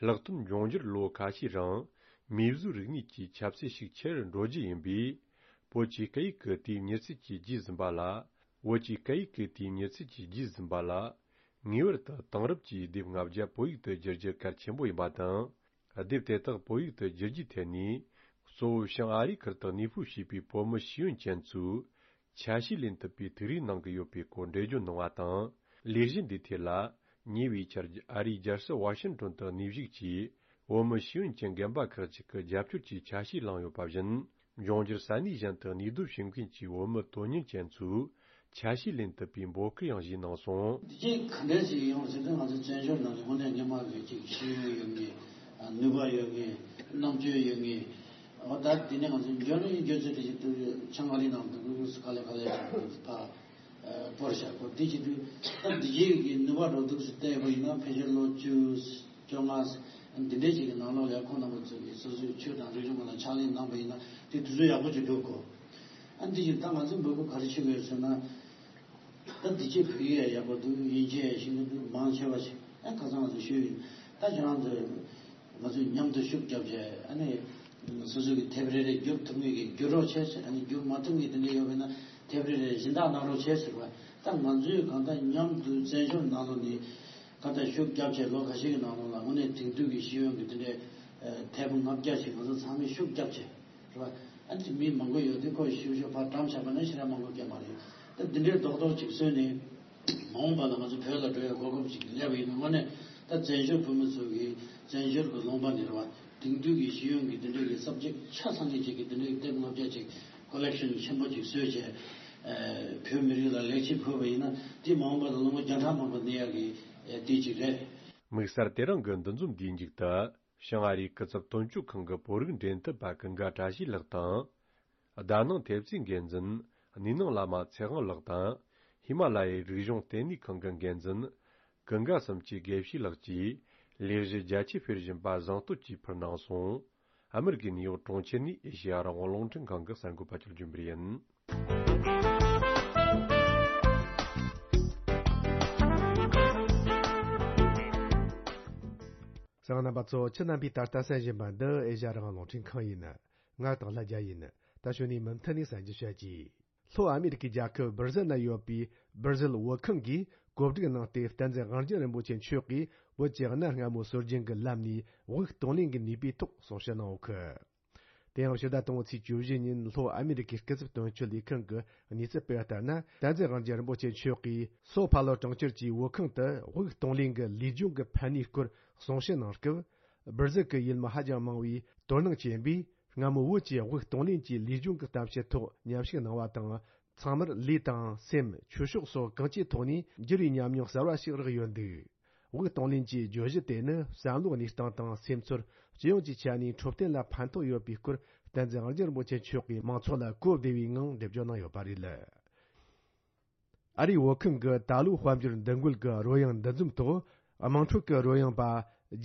ལྷག་དོན་འབྱུང་འགྱུར་ལོ་ཁ་ཤས་རིང་མིས་བཟོས་རིག་གནས་ཀྱི་ཁྱབ་ཚད་ཤུགས་ཆེ་རུ་འགྲོ་རྒྱུ་ཡིན་པས། བོད་ཀྱི་སྐད་ཡིག་གི་དེའི་མྱུར་ཚད་ཀྱི་རྗེས་ཟིན་པ་ལ། བོད་ཀྱི་སྐད་ཡིག་གི་དེའི་མྱུར་ཚད་ཀྱི་རྗེས་ཟིན་པ་ལ། ངེས་པར་དུ་དེང་རབས་ཀྱི་དེབ་ལྔ་བརྒྱ་བོད་ཡིག་ཏུ་བསྒྱུར་རྒྱུ་གལ་ཆེན་པོ་ཡིན་པ་དང་། དེབ་དེ་དག་བོད་ཡིག་ཏུ་བསྒྱུར་རྒྱུའི་ཐད་ནས། གཙོ་བོ་བྱང་ཨ་རིའི་ཁུལ་དུ་གནས་སྤོས་བྱས་པའི་བོད་མི་ཤེས་ཡོན་ཅན་ཚོས། ཆ་ཤས་ལེན་ཐུབ་པའི་ཐུགས་རེ་གནང་གི་ཡོད་པའི་སྐོར་འགྲེལ་བརྗོད་གནང་བ་དང་། ལས་གཞི་འདིའི་ཐད་ལ། ཉེ་བའི་ཆར་ཨ་རིའི་རྒྱལ་ས་ཝ་ཤིང་ཏོན་དུ་གནས་བཞུགས་ཀྱིས། བོད་མི་ཤེས་ཡོན་ཅན་རྒན་པ་ཁག་ཅིག་གི་རྒྱབ་སྐྱོར་གྱི་ཆ་ཤས་བླངས་ཡོད་པ་བཞིན། འབྱུང་འགྱུར་ས་གནས་གཞན་དུ་གནས་སྡོད་བྱེད་མཁན་གྱི་བོད་མི་དོན་གཉེར་ཅན་ཚོས་ཆ་ཤས་ལེན་ཐུབ་པའི་འབོད་སྐུལ་ཡང་ཞུས་གནང་སོང་། འདི་གཅིག་ག་འདྲས་ཞིག་ཡོང་ཟེར་དུས། ང་ཚོ་བཙན་བྱོལ་ནང་ལ་དངོས་གནས་སྔོན་མ་གི་ཅིག་ཤེས་ཡོན་ཡོད་མཁན། ནུས་པ་ཡོད་མཁན། རྣམ་དཔྱོད་ཡོད་མཁན། འོ་ད་དེ་ནས་ང་ཚོ་འཇོན་རིང་འཇོན་ཚོད་དེ་ཞིག་ཏུ་ཆང་ཨ་རི་ནང་དུ་དགོས་དགོས་སུ་ག་ལེ་ག་ལེ་ཕར་སྤོར་བཞག་གོ། དེ་བྱེད་དུས་ད་འདི་གཅིག་གི་ནུས་པ་འགྲོ་འདུག་སུ་བལྟས་པ་ཡིན་ན། ཕལ་ཆེར་ལོ་བཅུ། བཅོ་ལྔ། འདི་འདྲའི་ཅིག་གི་ནང་ལོགས་ལ་ཁོང་རྣམ་པ་ཚོ་གིས་སོ་སོའི་ཆོས་དང་རིག་གཞུང་སྒང་ལ་ཕྱག་ལས་གནང་པ་ཡིན་ན་དེ་དུས་ཚོད་ཡག་པོ་ཅིག་འགྲོ་གོ། ཨ་འདི་ཅིག་ད་ང་ཚོའི་འབོད་སྐུལ་ག་རེ་བྱེད་དགོས་ཟེར་ན། ད་འདི་ཅིག་བོད་ཡིག་ཡག་པོ་འདུག་དབྱིན་ཇི་ཡག་ཤེས་ཀྱི་འདུག་མང་ཆེ་བ་ཞིག་ཨ་ཁ་སང་ང་ཚོ་ཞུས་ཡིན། ད་ཁྱེད་རང་ཚོས་ང་ཚོས་མཉམ་དུ་ཤུགས་རྒྱབ་བྱས། ཨ་ནི་སོ་སོ་གི་དེབ་རེ་རེ་བསྒྱུར་ཐུབ་མཁན་གྱིས་བསྒྱུར་རོགས་བྱས་ཟེར། ཨ་ནི་བསྒྱུར་མ་ཐུབ་མཁན་དེ་འདྲ་ཡོད་པ་ཡིན་ན་དེབ་རེ་རེ་སྦྱིན་བདག་གནང་རོགས་བྱས་ཟེར་བ། ད་ང་ཚོས་གང་ལྟར་མཉམ་དུ་བཙན་བྱོལ་ནང་ལོགས་ནས། ཁ་ཏ་ཤུགས་རྒྱབ་བྱས་ལོ་ཁ་ཤས་ཀྱི་ནང་ལོགས་ལ་དངོས་གནས་དེང་དུས་ཀྱི་ཤེས་ཡོན་གྱི་དེ་འདྲའི་དེབ་ལྔ་བརྒྱ་ཞིག་ང་ཚོ་ཚང་མས་ཤུགས་རྒྱབ་བྱས་རེད་བ། ཨ་ནི་མི་མང་པོ་ཡོད་དུས་ཁོ་ཤུགས་ཤུགས་ཕར་བཀྲམ་བཞག་པ་ན་ཞེ་དྲག་མང་པོ་སྐྱེ་མ་རེད། ད་འདི་འདྲའི་རྡོག་རྡོག་ཅིག་བཟོས་ནས་མ་འོངས་པ་ལ་ང་ཚོ་བོད་ལ་འགྲོ་ཡའི་གོ་སྐབས་ཅིག་སླེབས་པ་ཡིན་ན། དངོས་གནས་ད་བཙན་བྱོལ་བོད་མི་ཚོ་གིས་བཙན་བྱོལ་གྱི་ལུང་པ་ནས་རེད་བ། དེང་དུས་ཀྱི་ཤེས་ཡོན་གྱི་དེ་འདྲའི་གི་སབ་ཇེག་ཆ་ཚང་ངེས་ཅིག་གི་དེ་འདྲའི་གི་དེབ་ལྔ་བརྒྱ་ཅིག་ཀོ་ལེག་ཤན་ཆེན་པོ་ཅིག་བཟོས་བྱས། བོད་མི་རིགས་ལ་ལེགས་སྐྱེས་ཕུལ་བ་ཡིན་ན། དེ་མ་འོངས་པ་ལ་ལོ་ངོ་བརྒྱ་ཕྲག་མང་པོ་གནས་ཡག་གི་དེ་ཅིག་རེད། དམིགས་བསལ་དེ་རིང་གི་འདུ་འཛོམས་འདིའི་མཇུག་ཏུ། བྱང་ཨ་རིའི་སྐུ་ཚབ་དོན་གཅོད་ཁང་གི་བོད་རིགས་འབྲེལ་མཐུད་པ་ཀུན་དགའ་བཀྲ་ཤིས་ལགས་དང་། ཟླ་ནང་ཐེབས་རྩའི་འགན་འཛིན་ནུས་སྣང་བླ་མ་ཚེ་དབང་ལགས་དང་། ཧི་མ་ལ་ཡའི་རིག་གཞུང་ལྟེ་གནས་ཁང་གི་འགན་འཛིན་ཀུན་དགའ་བསམ་གྱི་དགེ་བཤེས་ལགས་ཀྱིས་ལས་གཞི་རྒྱ་ཆེ་སྤེལ་བཞིན་པ་གཟེངས་བསྟོད་ཀྱིས་ཕུལ་གནང་སོང་། ཨ་མི་རི་ཀའི་ནིའུ་ཡོག་གྲོང་ཁྱེར་ནས་ཨེ་ཤེ་ཡ་རང་དབང་རླུང་འཕྲིན་ཁང་གི་གསར་འགོད་པ་ཆོས་སྒྲོན་རིན་པོ་ཆེ་ཡིན། གསན་མཁན་རྣམ་པ་ཚོ། ཁྱེད་རྣམ་པས་ད་ལྟ་གསན་བཞིན་པ་འདི་ཨེ་ཤེ་ཡ་རང་དབང་རླུང་འཕྲིན་ཁང་ཡིན། ང་སྟག་ལྷ་རྒྱལ་ཡིན། ད་གཞུག་ནས་མུ་མཐུད་ནས་གསན་རྒྱུ་བྱ་གྱིས། ལྷོ་ཨ་མི་རི་ཀའི་རྒྱལ་ཁབ་སྦིར་ཟིལ་ན་ཡོད་པའི་སྦིར་ཟིལ་བོད་ཁང་གིས་གོ་སྒྲིག་གནང་སྟེ། བསྟན་འཛིན་དབང་རྒྱལ་རིན་པོ་ཆེ་མཆོག་གིས་བོད་ཀྱི་གནའ་སྔ་མོའི་སྲོལ་རྒྱུན་གྱི་ལམ་ནས་དབུགས་གཏོང་ལེན་གྱི་ནུས་པའི་ཐོག་གསུང་བཤད་གནང་ཡོད་ཀི། དེ་ཡང་ཕྱི་ཟླ་དང་པོའི་ཚེས་བཅུ་བཞི་ཉིན་ལྷོ་ཨ་མི་རི་ཀའི་སྐུ་ཚབ་དོན་གཅོད་ལས་ཁང་གི་གནས་ཚུལ་སྤེལ་བ་ལྟར་ན། བསྟན་འཛིན་དབང་རྒྱལ་རིན་པོ་ཆེ་མཆོག་གིས་སོ་ཕ་ལོ་གྲོང་ཁྱེར་གྱི་བོད་ཁང་དུ་དབུགས་གཏོང་ལེན་གྱི་ལུས་སྦྱོང་གི་ཕན་ནུས་སྐོར་གསུང་བཤད་གནང་སྐབས། སྦིར་ཟིལ་གྱི་ཡུལ་མི་ཧ་ཅང་མང་བས་དོ་སྣང་བྱེད་པས། སྔ་མོ་བོད་ཀྱི་དབུགས་གཏོང་ལེན་གྱི་ལུས་སྦྱོང་གི་གཏམ་བཤད་ཐོག་མཉམ་ཞུགས་གནང་བ་དང་། ཚང་མར་ལུས་དང་སེམས། ཆོས་ཕྱོགས་སོགས་གང་ཅིའི་ཐོག་ནས་འགྱུར་བའི་ཉམས་མྱོང་གསར་བ་ཞིག་རག་ཡོད་འདུག་དབུགས་གཏོང་ལེན་གྱི་བརྗོད་གཞི་དེ་ནི་བསམ་བློའི་གནས་སྟངས་དང་སེམས་ཚོར། སྤྱི་ཡོངས་ཀྱི་ཆ་ནས་འཕྲོད་བསྟེན་ལ་ཕན་ཐོགས་ཡོད་པའི་སྐོར། བསྟན་འཛིན་དབང་རྒྱལ་རིན་པོ་ཆེ་མཆོག་གིས་མང་ཚོགས་ལ་གོ་བདེ་བའི་ངང་འགྲེལ་བརྗོད་གནང་ཡོད་པ་རེད། ཨ་རིའི་བོད་ཁང་གི་ད་ལོའི་དཔལ་འབྱོར་འདུ་འགོད་ཀྱི་རོལ་དབྱངས་འདུ་འཛོམས་ཐོག་དམངས་ཁྲོད་ཀྱི་རོལ་དབྱངས་པ་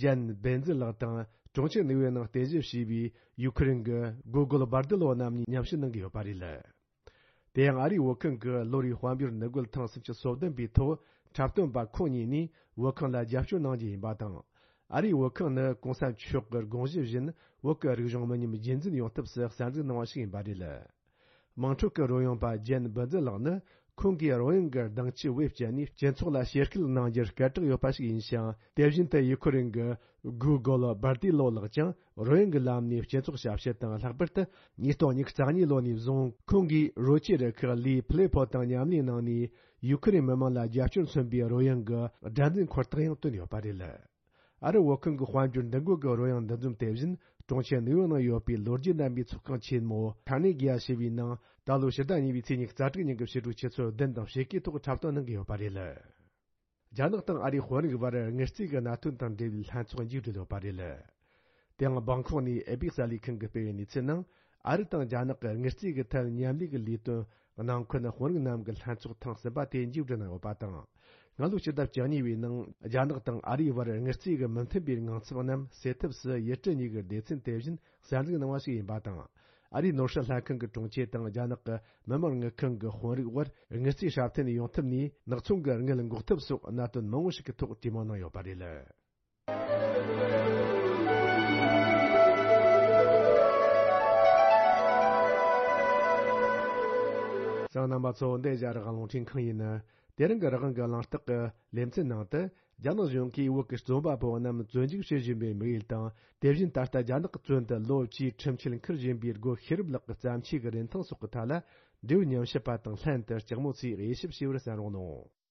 ཇན་བེན་ཛི་ལགས་དང་ གྲོང་ཁྱེར་ནིའུ་ཡོག་ནང་རྟེན་གཞི་བྱས་པའི་ཡུ་ཁུ་རེན་གྱི་སྒོ་རྒོལ་སྦར་ཏི་ལོ་རྣམས་གཉིས་མཉམ་ཞུགས་གནང་གི་ཡོད་པ་རེད། དེ་ཡང་ཨ་རིའི་བོད་ཁང་གི་ལོ་རེའི་དཔལ་འབྱོར་འདུ་འགོད་ཐེངས་སུམ་ཅུ་སོ་བདུན་པའི་ཐོག་འཁྲབ་སྟོན་པ་ཁོང་གཉིས་ནས་བོད་ཁང་ལ་རྒྱབ་སྐྱོར་གནང་རྒྱུ་ཡིན་པ་དང་། ཨ་རིའི་བོད་ཁང་ནི་གོང་ས་མཆོག་གི་དགོངས་གཞི་བཞིན་བོད་ཀྱི་རིག་གཞུང་མི་ཉམས་རྒྱུན་འཛིན་ཡོང་ཐབས་སུ་གསར་འཛུགས་གནང་བ་ཞིག་ཡིན་པ་རེད། དམངས་ཁྲོད་ཀྱི་རོལ་དབྱངས་པ་ཇན་འབུལ་འཛིན་ལགས་ནི། ཁོང་གིས་རོལ་དབྱངས་ཀྱི་སྡིངས་ཆའི་དབུ་བཅད་ནས་སྤྱི་ཚོགས་ལ་ཞེ་སྐུལ་གནང་རྒྱུར་སྐད་གྲགས་ཡོད་པ་ཞིག་ཡིན་ཞིང་། དེ་བཞིན་དུ་ཡུ་ཁུ་རེན་གྱི་སྒོ་རྒོལ་སྦར་ཏི་ལོ་ལགས་ཀྱང་རོལ་དབྱངས་ཀྱི་ལམ་ནས་སྤྱི་ཚོགས་ཞབས་ཞུ་དང་། ལྷག་པར་དུ་ཉིས་སྟོང་ཉི་ཤུ་རྩ་གཉིས་ལོ་ནས་བཟུང་ཁོང་གིས་རོལ་ཆས་རུ་ཁག་ལི་ཕི་ལེ་ཕོ་དང་མཉམ་ལས་གནང་ནས། ཡུ་ཁུ་རེན་མི་དམངས་ལ་རྒྱབ་སྐྱོར་མཚོན་པའི་རོལ་དབྱངས་ཀྱི་སྒྲ་འཛིན་འཁོར་ཐག་ཡང་བཏོན་ཡོད་པ་རེད། ཨ་རི་བོད་ཁང་གི་དཔལ་འབྱོར་འདུ་འགོད་ཀྱི་རོལ་དབྱངས་འདུ་འཛོམས་དེ་བཞིན་གྲོང་ཁྱེར་ནིའུ་ཡོག་ནང་ཡོད་པའི་ལོ་རྒྱུས་ལྡན་པའི་ཚོགས་ཁང་ཆེན་མོ་ཁ་ནེ་གི་ཡ་ཞེས་པའི་ནང་ད་ལོ་ཕྱི་ཟླ་གཉིས་པའི་ཚེས་ཉི་ཤུ་རྩ་དྲུག་ཉིན་གྱི་ཕྱི་དྲོ་ཆུ་ཚོད་བདུན་དང་ཕྱེད་ཀའི་ཐོག་འཁྲབ་སྟོན་གནང་གི་ཡོད་པ་རེད། རྒྱ་ནག་དང་ཨ་རིའི་དཔོན་རིགས་བར་དངུལ་རྩིས་ཀྱི་གནད་དོན་དང་འབྲེལ་བའི་ལྷན་ཚོགས་མཇུག་བསྒྲིལ་ཡོད་པ་རེད། དེ་ཡང་སྦང་ཁོག་ནས་ཨེ་པི་གསར་ལས་ཁང་གིས་སྤེལ་བའི་གནས་ཚུལ་ནང་། ཨ་རི་དང་རྒྱ་ནག་གི་དངུལ་རྩིས་ཀྱི་ཐད་མཉམ་ལས་ཀྱི་ལས་དོན་ནང་ཁུལ་དཔོན་རིགས་རྣམས་ཀྱི་ལྷན་ཚོགས་ཐེངས་གསུམ་པ་དེ་མཇུག་བསྒྲིལ་གནང་ཡོད་པ་དང་། སྔ་ལོ་ཕྱི་ཟླ་བཅུ་གཉིས་པའི་ནང་རྒྱ་ནག་དང་ཨ་རིའི་བར་དངུལ་རྩིས་ཀྱི་མི་མཐུན་པའི་དངངས་འཚབ་རྣམས་སེལ་ཐབས་སུ་ཡུལ་གྲུ་གཉིས་ཀྱི་སྡེ་ཚན་དེ་བཞིན་གསར་འཛུགས་གནང་བ་ཞིག་ཡིན་པ་དང་། ཨ་རིའི་ནོར་སྲིད་ལྷན་ཁང་གི་དྲུང་ཆེ་དང་རྒྱ་ནག་གི་མི་དམངས་དངུལ་ཁང་གི་དཔོན་རིགས་དབར་དངུལ་རྩིས་སྲ་བརྟན་ཡོང་ཐབས་ནས་ནག་ཚོང་གི་དངུལ་འགོག་ཐབས་སོགས་གནད་དོན་མང་པོ་ཞིག་གི་ཐོག་གྲོས་མོལ་གནང་ཡོད་པ་རེད། གསན་མཁན་རྣམ་པ་ཚོ། འདི་རྒྱ་རིགས་རླུང་འཕྲིན་ཁང་ཡིན། དེ་རིང་གི་རང་དབང་གི་གླེང་སྟེགས་ཀྱི་ལེ་ཚན་ནང་དུ། རྒྱ་ནག་གཞུང་གིས་བོད་ཀྱི་རྩོམ་པ་པོ་རྣམས་བཙོན་འཇུག་བྱེད་བཞིན་པའི་དམིགས་ཡུལ་དང་། དེ་བཞིན་ད་ལྟ་རྒྱ་ནག་གི་བཙོན་དུ་ལོ་བཅུའི་ཁྲིམས་ཆད་འཁུར་བཞིན་པའི་སྒོ་ཤེས་རབ་ལགས་ཀྱི་བརྩམས་ཆོས་ཀྱི་རིན་ཐང་སོགས་ཀྱི་ཐད་ལ། འབྲེལ་ཡོད་ཉམས་ཞིབ་པ་དང་ལྷན་དུ་ལྕགས་མོ་ཚོས་དབྱེ་ཞིབ་བྱས་པར་གསན་རོགས་གནང་།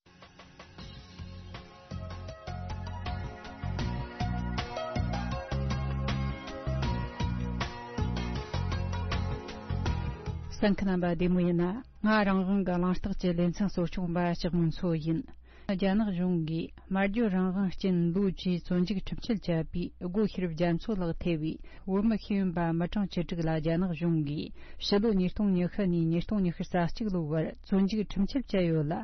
གསན་མཁན་རྣམ་པ་བདེ་མོ་ཡིན་ན། ང་རང་དབང་གི་གླེང་སྟེགས་ཀྱི་ལེ་ཚན་གཙོ་སྐྱོང་པ་ལྕགས་མོ་མཚོ་ཡིན། རྒྱ་ནག་གཞུང་གིས་སྨྲ་བརྗོད་རང་དབང་རྐྱེན་ལོ་བཅུའི་བཙོན་འཇུག་ཁྲིམས་ཆད་བཅད་པའི་སྒོ་ཤེས་རབ་རྒྱ་མཚོ་ལགས་ཐེ་བའི་བོད་མི་ཤེས་ཡོན་པ་མི་གྲངས་བཅུ་དྲུག་ལ་རྒྱ་ནག་གཞུང་གིས་ཕྱི་ལོ་ཉིས་སྟོང་ཉི་ཤུ་ནས་ཉིས་སྟོང་ཉི་ཤུ་རྩ་གཅིག་ལོའི་བར་བཙོན་འཇུག་ཁྲིམས་ཆད་བཅད་ཡོད་ལ།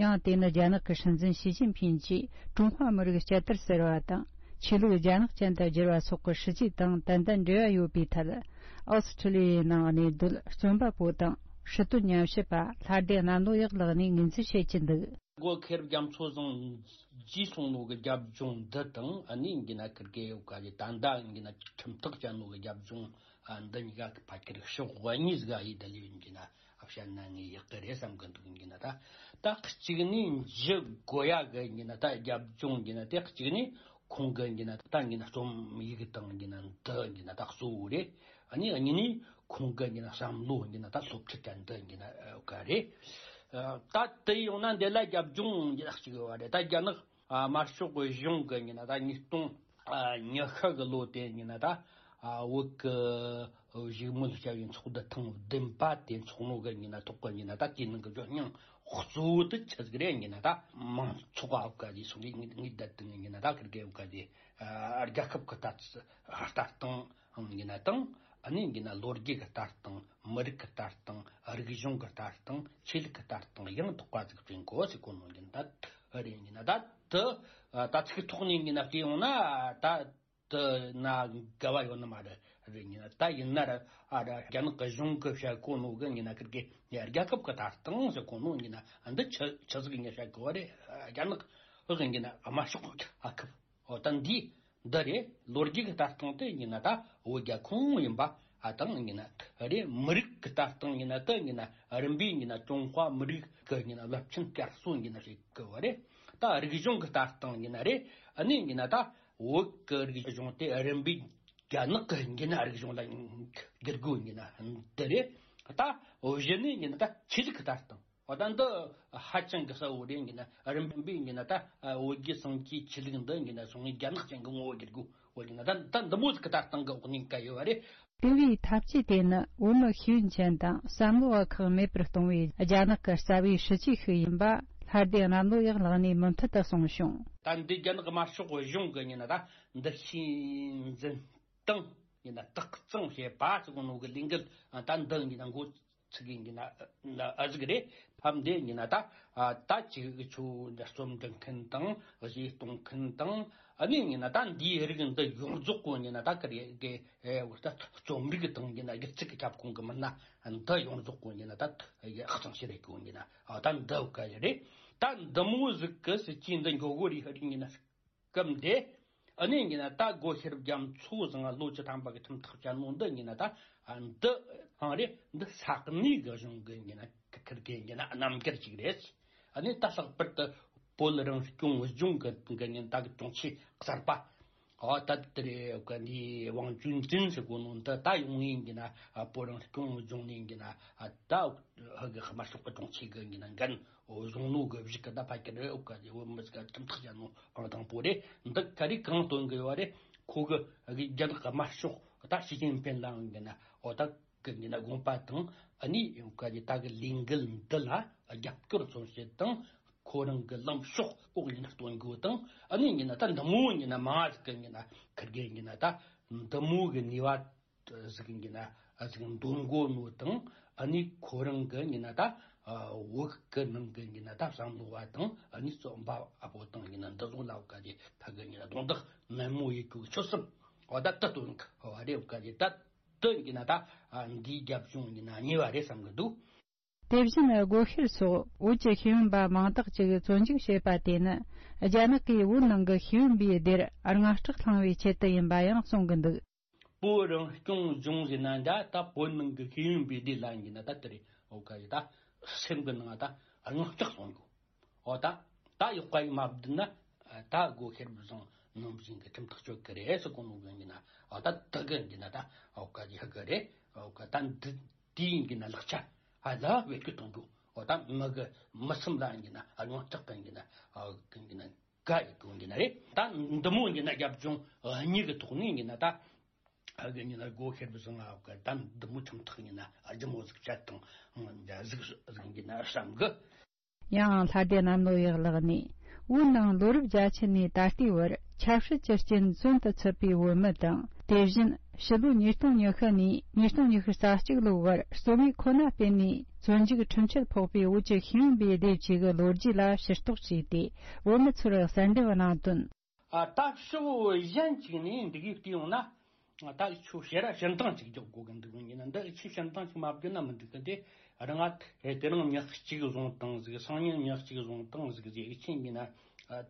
ཡང་དེ་ནི་རྒྱ་ནག་གི་སྲིད་འཛིན་ཞི་ཅིན་ཕིན་གྱིས་ཀྲུང་ཧྭ་མི་རིགས་བསྐྱར་དར་ཟེར་བ་དང་། ཆོས་ལུགས་རྒྱ་ནག་ཅན་དུ་བསྒྱུར་བ་སོགས་ཀྱི་སྲིད་ཇུས་དང་ཏན་ཏན་འབྲེལ་བ་ཡོད་པའི་ཐད། ཨོ་སི་ཁྲི་ལི་ཡའི་ནང་གནས་སྡོད་རྩོམ་པ་པོ་དང་སྲིད་དོན་ཉམས་ཞིབ་པ་ལྷ་སྡེ་གནམ་ལོ་ཡག་ལགས་ནས་ངོས་འཛིན་བྱེད་ཀྱི་འདུག། སྒོ་ཤེས་རབ་རྒྱ་མཚོ་བཟང་རྗེས་སོང་ནོ་གི་རྒྱབ་ལྗོངས་འདི་དང་། ཨ་ནི་ཡིན་གྱི་ན་ཁིར་གེ་ཡོད་ག་ལས་ད་ལྟ་ཡིན་གྱི་ན་ཁྲིམས་ཐག་བཅད་ནོ་གི་རྒྱབ་ལྗོངས་འདི་གཉིས་ཀ་གི་ཕ་ཁེར་ཕྱོགས་གཉིས་ཀ་ཡིན། ད་ལས་ཡིན་གྱི་ན་བཤད་ན་ངས་ཡག་གི་རེད་བསམ་གི་འདུག། ཡིན་གྱི་ན་ད་ད་གཅིག་ནས་འཇུ་དགོས་ཡ་གི་ཡིན་གྱི་ན་ད་རྒྱབ་ལྗོངས་ཡིན་གྱི་ན་དེ་གཅིག་ནས་ཁོང་གི་ཡིན་གྱི་ན་ད་ཡིན་གྱི་ན་རྩོམ་ཡིག་དང་ཡིན་གྱི་ན་འདི་ཡིན་གྱི་ན་ད་གཙོ་བོ་རེད། ཨ་ནི་གཉིས་ནས་ཁོང་གི་ཡིན་གྱི་ན་བསམ་བློ་ཡིན་གྱི་ན་ད་སློབ་ཁྲིད་དང་འདི་ཡིན་གྱི་ན་ག་རེད། ད་དེ་ཡོང་ན་འདི་ལ་རྒྱབ་ལྗོངས་ཡིན་གྱི་ན་གཅིག་ཡོད་རེད། ད་རྒྱ་ནག་དམར་ཤོག་གཞུང་གི་ཡིན་གྱི་ན་ད་ཉིས་སྟོང་ཉི་ཤུ་གི་ལོ་དེ་ཡིན་གྱི་ན་ད་བོད་གི་བཞུགས་མོལ་བྱ་བའི་ཚོགས་འདུ་ཐེངས་བདུན་པ་དེ་འཚོགས་ནོ་གི་ཡིན་གྱི་ན་ཐོག་གི་ཡིན་གྱི་ན་ད་དེའི་ནང་གི་ཇོ་སྙིང་གཙོ་བོ་དེ་ཆི་ཟིག་རེད། ཡིན་གྱི་ན་ད་མང་ཚོགས་ཨ་བ་ག་དེ་སོང་གི་ངེས་ངེས་བསྡད་དེ་ཡིན་གྱི་ན་ད་ཁིར་གེ་ཨ་བ་ག་དེ་རྒྱལ་ཁབ་གི་ལྟ་ལྟ་སྟངས་ཡིན་གྱི་ན་དང་། ཨ་ནི་ཡིན་གྱི་ན་ལོ་རྒྱུས་ཀྱི་ལྟ་སྟངས། མི་རིགས་ཀྱི་ལྟ་སྟངས། རིག་གཞུང་གི་ལྟ་སྟངས། ཆོས་ལུགས་ཀྱི་ལྟ་སྟངས་ཡང་དག་པ་ཟིག་བསྐྲུན་དགོས་ཟེར་གོ་ནོ་ཡིན་གྱི་ན་ད་རེད། ཡིན་གྱི་ན་ད་དེ་ད་ཚིག་ཐོག་ནས་ཡིན་གྱི་ན་བལྟས་ཡོང་ན་ད། དེ་ན་འགལ་བ་ཡོད་ནི་མ་རེད། རེད། ཡིན་ན་ད་ཡིན་ན་ར་ཨ་ར་རྒྱ་ནག་གི་གཞུང་གི་བཤད་གོ་ནོ་གི་ཡིན་ན་ཁིར་གི་རྒྱལ་ཁབ་གི་ལྟ་སྟངས་ཟེར་གོ་ནོ་ཡིན་ན་འདི་ཆི་ཆི་ཟིག་ཡིན་ན་བཤད་གོ་བ་རེད། རྒྱ་ནག་ཨ་ཡིན་གྱི་ན་དམར་ཤོག་ཨ་ཁབ། འོ་ད་འདི་འདི་རེད། ལོ་རྒྱུས་གི་ལྟ་སྟངས་དེ་ཡིན་ན་ད་བོད་རྒྱ་ཁོངས་ཡིན་པ་ཨ་དང་ཡིན་ན་རེད། མི་རིགས་གི་ལྟ་སྟངས་ཡིན་ན་དེ་ཡིན་ན་རིམ་པས་ཡིན་ན་ཀྲུང་ཧྭ་མི་རིགས་གི་ཡིན་ན་རླབས་ཆེན་བསྐྱར་གསོ་ཡིན་ན་བཤད་གོ་བ་རེད། ད་རིག་གཞུང་གི་ལྟ་སྟངས་ཡིན་ན་རེད། ཨ་ནི་ཡིན་ན་ད། བོད་ཀྱི་རིག་གཞུང་དེ་རིམ་པས་རྒྱ་ནག་གི་ཡིན་གྱི་ན་རིག་གཞུང་ལ་བསྒྱུར་དགོས་ཡིན་གྱི་ན་འདི་རེད། ད་གཞི་ནས་ཡིན་གྱི་ན་ད་ཆོས་ལུགས་ཀྱི་ལྟ་སྟངས། འོ་ད་འདི་ཧ་ཅང་གི་གསལ་བོ་རེད། ཡིན་གྱི་ན་རིམ་པས་ཡིན་གྱི་ན་ད་བོད་རྒྱལ་སངས་རྒྱས་ཆོས་ལུགས་འདི་ཡིན་གྱི་ན་སོང་ངས་རྒྱ་ནག་ཅན་གྱི་ངོ་བོ་བསྒྱུར་དགོས་འོ་ཡིན་ན་ད་ད་འདི་མོ་ཟིག་གི་ལྟ་སྟངས་ཀྱི་འོག་ནས་བཀལ་ཡོད་པ་རེད། དེ་བས་འཐབ་ཇུས་དེ་ནི་བོད་མི་ཤེས་ཡོན་ཅན་དང་བསམ་བློ་བ་ཁག་མེད་པར་གཏོང་བའི་རྒྱ་ནག་གི་རྩ་བའི་སྲིད་ཇུས་ཤིག་ཡིན་པ་ལྷ་སྡེ་གནམ་ལོ་ཡག་ལགས་ནས་མུ་མཐུད་དུ་གསུངས་བྱུང་། ད་འདི་རྒྱ་ནག་དམར་ཤོག་གཞུང་གི་ཡིན་ན་ད་འདུ་ཤེས་འཛིན་སྟངས་ཡིན་ན་དག་གཙང་བྱེད་པ་ཟེར་གོ་ནོ་གི་ལས་འགུལ་ད་འདི་ཡིན་ན་འགོ་ ཚིག་གི་ཡིན་ན་ཨ་ཟིག་རེད། ཕམ་དེ་ཡིན་ན་ད་ཨ་ད་ཅིག་ཆུ་འདི་རྩོམ་འབྲི་མཁན་དང་གཞས་གཏོང་མཁན་དང་ཨ་ནི་ཡིན་ན་ད་འདིའི་རིགས་འདི་ཡོངས་རྫོགས་གོ་ཡིན་ན་ད་ཀ་རེ་གི་ཨེ་ད་རྩོམ་རིག་དང་ཡིན་ན་སྒྱུ་རྩལ་གྱི་ཁྱབ་ཁོངས་གི་མི་སྣ་འདི་ཡོངས་རྫོགས་གོ་ཡིན་ན་ད་ཨ་གཙང་ཞིག་རེད་གོ་ཡིན་ན་ཨ་ད་འདི་ག་རེད། ད་འདི་མོ་ཟིག་གི་སྲིད་ཇུས་འདི་འགྱོ་གོ་རེད་ཧ་རིག་ཡིན་ན། སྐབས་འདི། ཨ་ནི་ཡིན་ན་ད་སྒོ་ཤེས་རབ་རྒྱ་མཚོ་བཟང་ལོ་བཅུ་ཐམ་པ་གི་ཁྲིམས་ཐག་བཅད་ནོ་འདི་ཡིན་ན་ད་འདི་ཨང་རེད། འདི་ས་གནས་གི་གཞུང་གི་ཡིན་ན་ཁིར་གི་ཡིན་ན་རྣམ་འགྱུར་ཅིག་རེད། ཨ་ནི་ད་ལྷག་པར་དུ་བོད་རང་སྐྱོང་ལྗོངས་གི་གི་ཡིན་ད་གི་དྲུང་ཆེ་གསར་པ། ཨོ་ད་དེ་རེད་གི་ནི་ཝང་ཅུན་ཀྲིན་ཟེར་གོ་ནོ་འདི་ད་ཡོང་ཡིན་གི་ན་བོད་རང་སྐྱོང་ལྗོངས་ནས་གི་ན་ད་ཧ་གི་དམར་ཤོག་གི་དྲུང་ཆེ་གི་གི་ན་འགན་བཟུང་ནོ་གི་བཞི་གི་ད་ཕ་གི་རེད། ཨོ་ག་ཡི་བོད་མི་ཟིག་ག་ཁྲིམས་ཐག་བཅད་ནོ་ཨང་དང་པོ་རེད། འདི་ག་རེ་གང་སྟོན་གི་ཡོད་རེད། ཁོ་གི་གི་རྒྱ་ནག་དམར་ཤོག་ད་ཞི་ཅིན་ཕིན་ལའང་གི་ན་ཨོ་ད་གི་གི་ན་དགོངས་པ་དང་ཨ་ནི་ཡོང་ག་ཡི་ད་གི་ལས་འགུལ་འདི་ལ་རྒྱབ་སྐྱོར་མཚོན་བྱེད་དང་། ཁོ་རང་གི་ལངས་ཕྱོགས་ལྐོག་ཡིན་སྟོན་དགོས་དང་ཨ་ནི་ཡིན་ན་ད་འདི་མོ་ཡིན་ན་མང་ཟིག་གི་ཡིན་ན་ཁིར་གི་ཡིན་ན་ད་འདི་མོ་གི་ནུས་པ་ཟིག་ཡིན་ན་ཨ་ཟིག་འདོན་དགོས་ནོ་དང་ཨ་ནི་ཁོ་རང་གི་ཡིན་ན་ད་བོད་གི་ནང་གི་ཡིན་ན་ད་བསམ་བློ་བ་དང་ཨ་ནི་རྩོམ་པ་ཨ་བོ་དང་ཡིན་ན་འདི་ཚོ་ལ་བཀའ་དེ་ཕ་གི་ཡིན་ན་རྡུང་རྡེག་ནན་མོ་ཡེད་རྒྱུ་གི་ཆོད་སེམས་འོ་ད་ད་སྟོན་གི་བ་རེད། བཀའ་དེ་ད་དུ་ཡིན་ན་ད་འདིའི་རྒྱབ་ལྗོངས་ཡིན་ན་ཉེ་བ་རེད་བསམ་གི་འདུག། དེ་བཞིན་སྒོ་ཤེར་སོགས་བོད་ཀྱི་ཤེས་ཡོན་པ་མང་དག་ཅིག་བཙོན་འཇུག་བྱས་པ་དེ་ནི་རྒྱ་ནག་གིས་བོད་ནང་གི་ཤེས་ཡོན་པའི་སྡེར་དངངས་སྐྲག་བསླངས་པའི་ཆེད་དུ་ཡིན་པ་ཡང་གསུང་གི་འདུག། བོད་རང་སྐྱོང་ལྗོངས་ཟེར་ན་འདྲ་ད་བོད་ནང་གི་ཤེས་ཡོན་པའི་སྡེ་ལ་ཡིན་ན་ད་དེ་རེད། འོ་ག་རེད། ད་སེམས་གི་ནང་ད་དངངས་སྐྲག་སོང་གོ། འོ་ད་ད་ཡོག་ག་ཡི་མ་བསྡད་ན་ད་སྒོ་ཤེར་བཟང་ནང་བཞིན་གི་ཁྲིམས་ཐག་གཅོད་གི་རེད་ཟེར་གོ་ནོ་གི་ཡིན་ན་འོ་ད་ད་གི་ཡིན་ན་ད་འོ་ག་རེད་ཧ་གི་རེད། འོ་ག་ད་འདི། དེའི་གི་ན་ལག་ཆ་ཨ་ལ་བེད་སྤྱོད་གཏོང་རྒྱུ། འོ་ད་མི་གི་མི་སེམས་ལ་གི་ན་ཨ་ཡོང་ལྕགས་གི་གི་ན་ཨ་གི་གི་ན་ག་ཡི་གི་གི་ན་རེད། ད་འདི་མོ་གི་ན་རྒྱབ་ལྗོངས་གཉིས་གི་ཐོག་ནས་གི་ན་ད་ཨ་གི་གི་ན་སྒོ་ཤེར་བཟང་ཨ་གི་ད་འདི་མོ་ཁྲིམས་ཐག་གི་ན་ཨ་ལྗི་མོ་ཟིག་བཅད་དང་ཟིག་ཟིག་གི་ན་བསམ་གི། ཡང་ལྷ་སྡེ་གནམ་ལོ་ཡག་ལགས་ནས་བོད་ནང་ལོ་རབས་བརྒྱད་ཅུ་ནས་ད་ལྟའི་བར་ཆབ་སྲིད་ཀྱི་རྐྱེན་བཙོན་དུ་ཚུད་པའི་བོད་མི་དང་དེ་བཞིན་ཕྱི་ལོ་ཉིས་སྟོང་ཉི་ཤུ་ནས་ཉིས་སྟོང་ཉི་ཤུ་རྩ་གཅིག་ལོའི་བར་རྩོམ་ཡིག་ཁོ་ན་སྤེལ་ནས་བཙོན་འཇུག་ཁྲིམས་ཆད་ཕོག་པའི་བོད་ཀྱི་ཤེས་ཡོན་པའི་སྡེ་གཅིག་གི་ལོ་རྒྱུས་ལ་ཕྱིར་རྟོག་བྱས་ཏེ་བོད་མི་ཚོར་གསལ་འདེབས་གནང་དོན། ཨ་ད་ཕྱོགས་གཞན་གཅིག་ནས་འདི་གའི་བལྟས་ཡོང་ན། ད་ཁྱོད་ཞེ་ར་ཞིན་ཐང་ཅིག་རྒྱག་དགོས་གི་འདུག་ཡིན་ན་འདི་ཁྱོད་ཞིན་ཐང་ཅིག་མ་བརྒྱབ་ན་མི་འགྲིག་གི། དེ་རང་ང་དེ་རིང་མྱི་གཅིག་བཟུང་བཏང་ཟིག་སང་ཉིན་མྱི་གཅིག་བཟུང་བཏང་ཟིག་ཟིག་ཁྱོད་ཡིན་ན་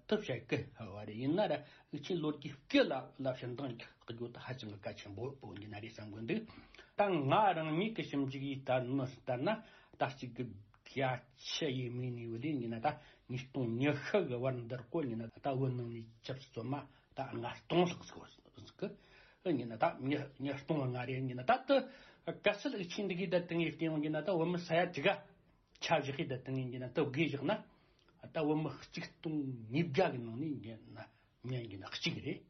དུ་བཤད་གི་བ་རེད། ཡིན་ན་ར་ཁྱོད་ལོ་རྒྱུས་སྐད་ལ་ལ་ཞིན་ཐང་རྒྱག་རྒྱུ་ད་ཧ་ཅང་གི་གལ་ཆེན་པོ་པོ་ཡིན་ན་རེད་བསམ་གི་འདུག། ད་ང་རང་ཉིད་ཀྱི་ཞིབ་འཇུག་ཡིས་ལྟར་ན་ལྟར་ན་ད་གཅིག་གི་བརྒྱད་ཅུ་ཡས་མས་ནས་བུད་ཡིན་ན་ད་ཉིས་སྟོང་ཉི་ཤུ་གི་བར་འདིར་གོ་ཡིན་ན་ད་བོད་ནང་ནས་ཆབ་སྲིད་བཙོན་མ་ད་ལྔ་སྟོང་ལྷག་ཟིག་གི་ཡིན་ན་ད་ཉིས་ཉིས་སྟོང་ལྔ་རེ་ཡིན་ན་ད་དུ་གལ་སྲིད་ཨུ་ཆི་འདི་གི་ད་དེང་ཡི་སྟེང་ཡིན་ན་ད་བོད་མི་ས་ཡ་དྲུག་ག་ཆ་བཞག་གི་ད་དེང་ཡིན་ན་ད་བགོས་བཞག་ན་ད་བོད་མི་གཅིག་སྟོང་ཉིས་བརྒྱ་གི་ནང་ནས་ཡིན་ན་མི་ཡིན་ན་གཅིག་རེད།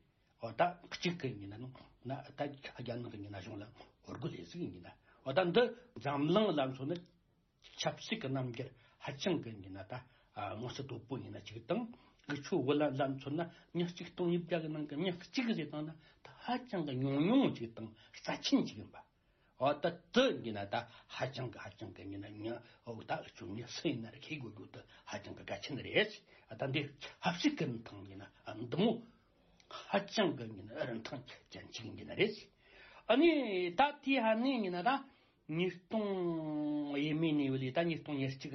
འོ་ད་གཅིག་གི་ཡིན་ན་ན་ད་རྒྱ་ནག་གི་ཡིན་ན་གཞུང་ལ་ངོ་རྒོལ་ལས་ཟིག་ཡིན་ན་འོ་ད་འདི་འཛམ་གླིང་ལ་མཚོན་ན་ཆབ་སྲིད་ཀྱི་རྣམ་འགྱུར་ཧ་ཅང་གི་ཡིན་ན་ད་མངོན་གསལ་དོད་པོ་ཡིན་ན་གཅིག་དང་། འུ་ཆོ་བོད་ལ་ལ་མཚོན་ན་མྱི་གཅིག་སྟོང་ཉིས་བརྒྱ་གི་ནང་གི་མྱི་གཅིག་ཟེར་བཏང་ན་ད་ཧ་ཅང་གི་ཉུང་ཉུང་གཅིག་དང་རྩ་ཆེན་གཅིག་ཡིན་པ། འོ་ད་དུ་ཡིན་ན་ད་ཧ་ཅང་གི་ཧ་ཅང་གི་ཡིན་ན་ཉི་འོ་ད་འུ་ཆོ་མྱི་སུ་ཡིན་ན་ར་ཁེ་དགོས་རྒྱུ་དུ་ཧ་ཅང་གི་གལ་ཆེན་རེད། ད་འདི་ཆབ་སྲིད་ཀྱི་རིན་ཐང་ཡིན་ན་འདི་མོ་ཧ་ཅང་གི་ཡིན་ན་རིན་ཐང་ཅན་ཅིག་ཡིན་ན་རེད། ཨ་ནི་ད་དེ་ཧ་ནི་ཡིན་ན་ད་ཉིས་སྟོང་ཡས་མས་ནས་བུད་ལས་ད་ཉིས་སྟོང་ཉེར་གཅིག་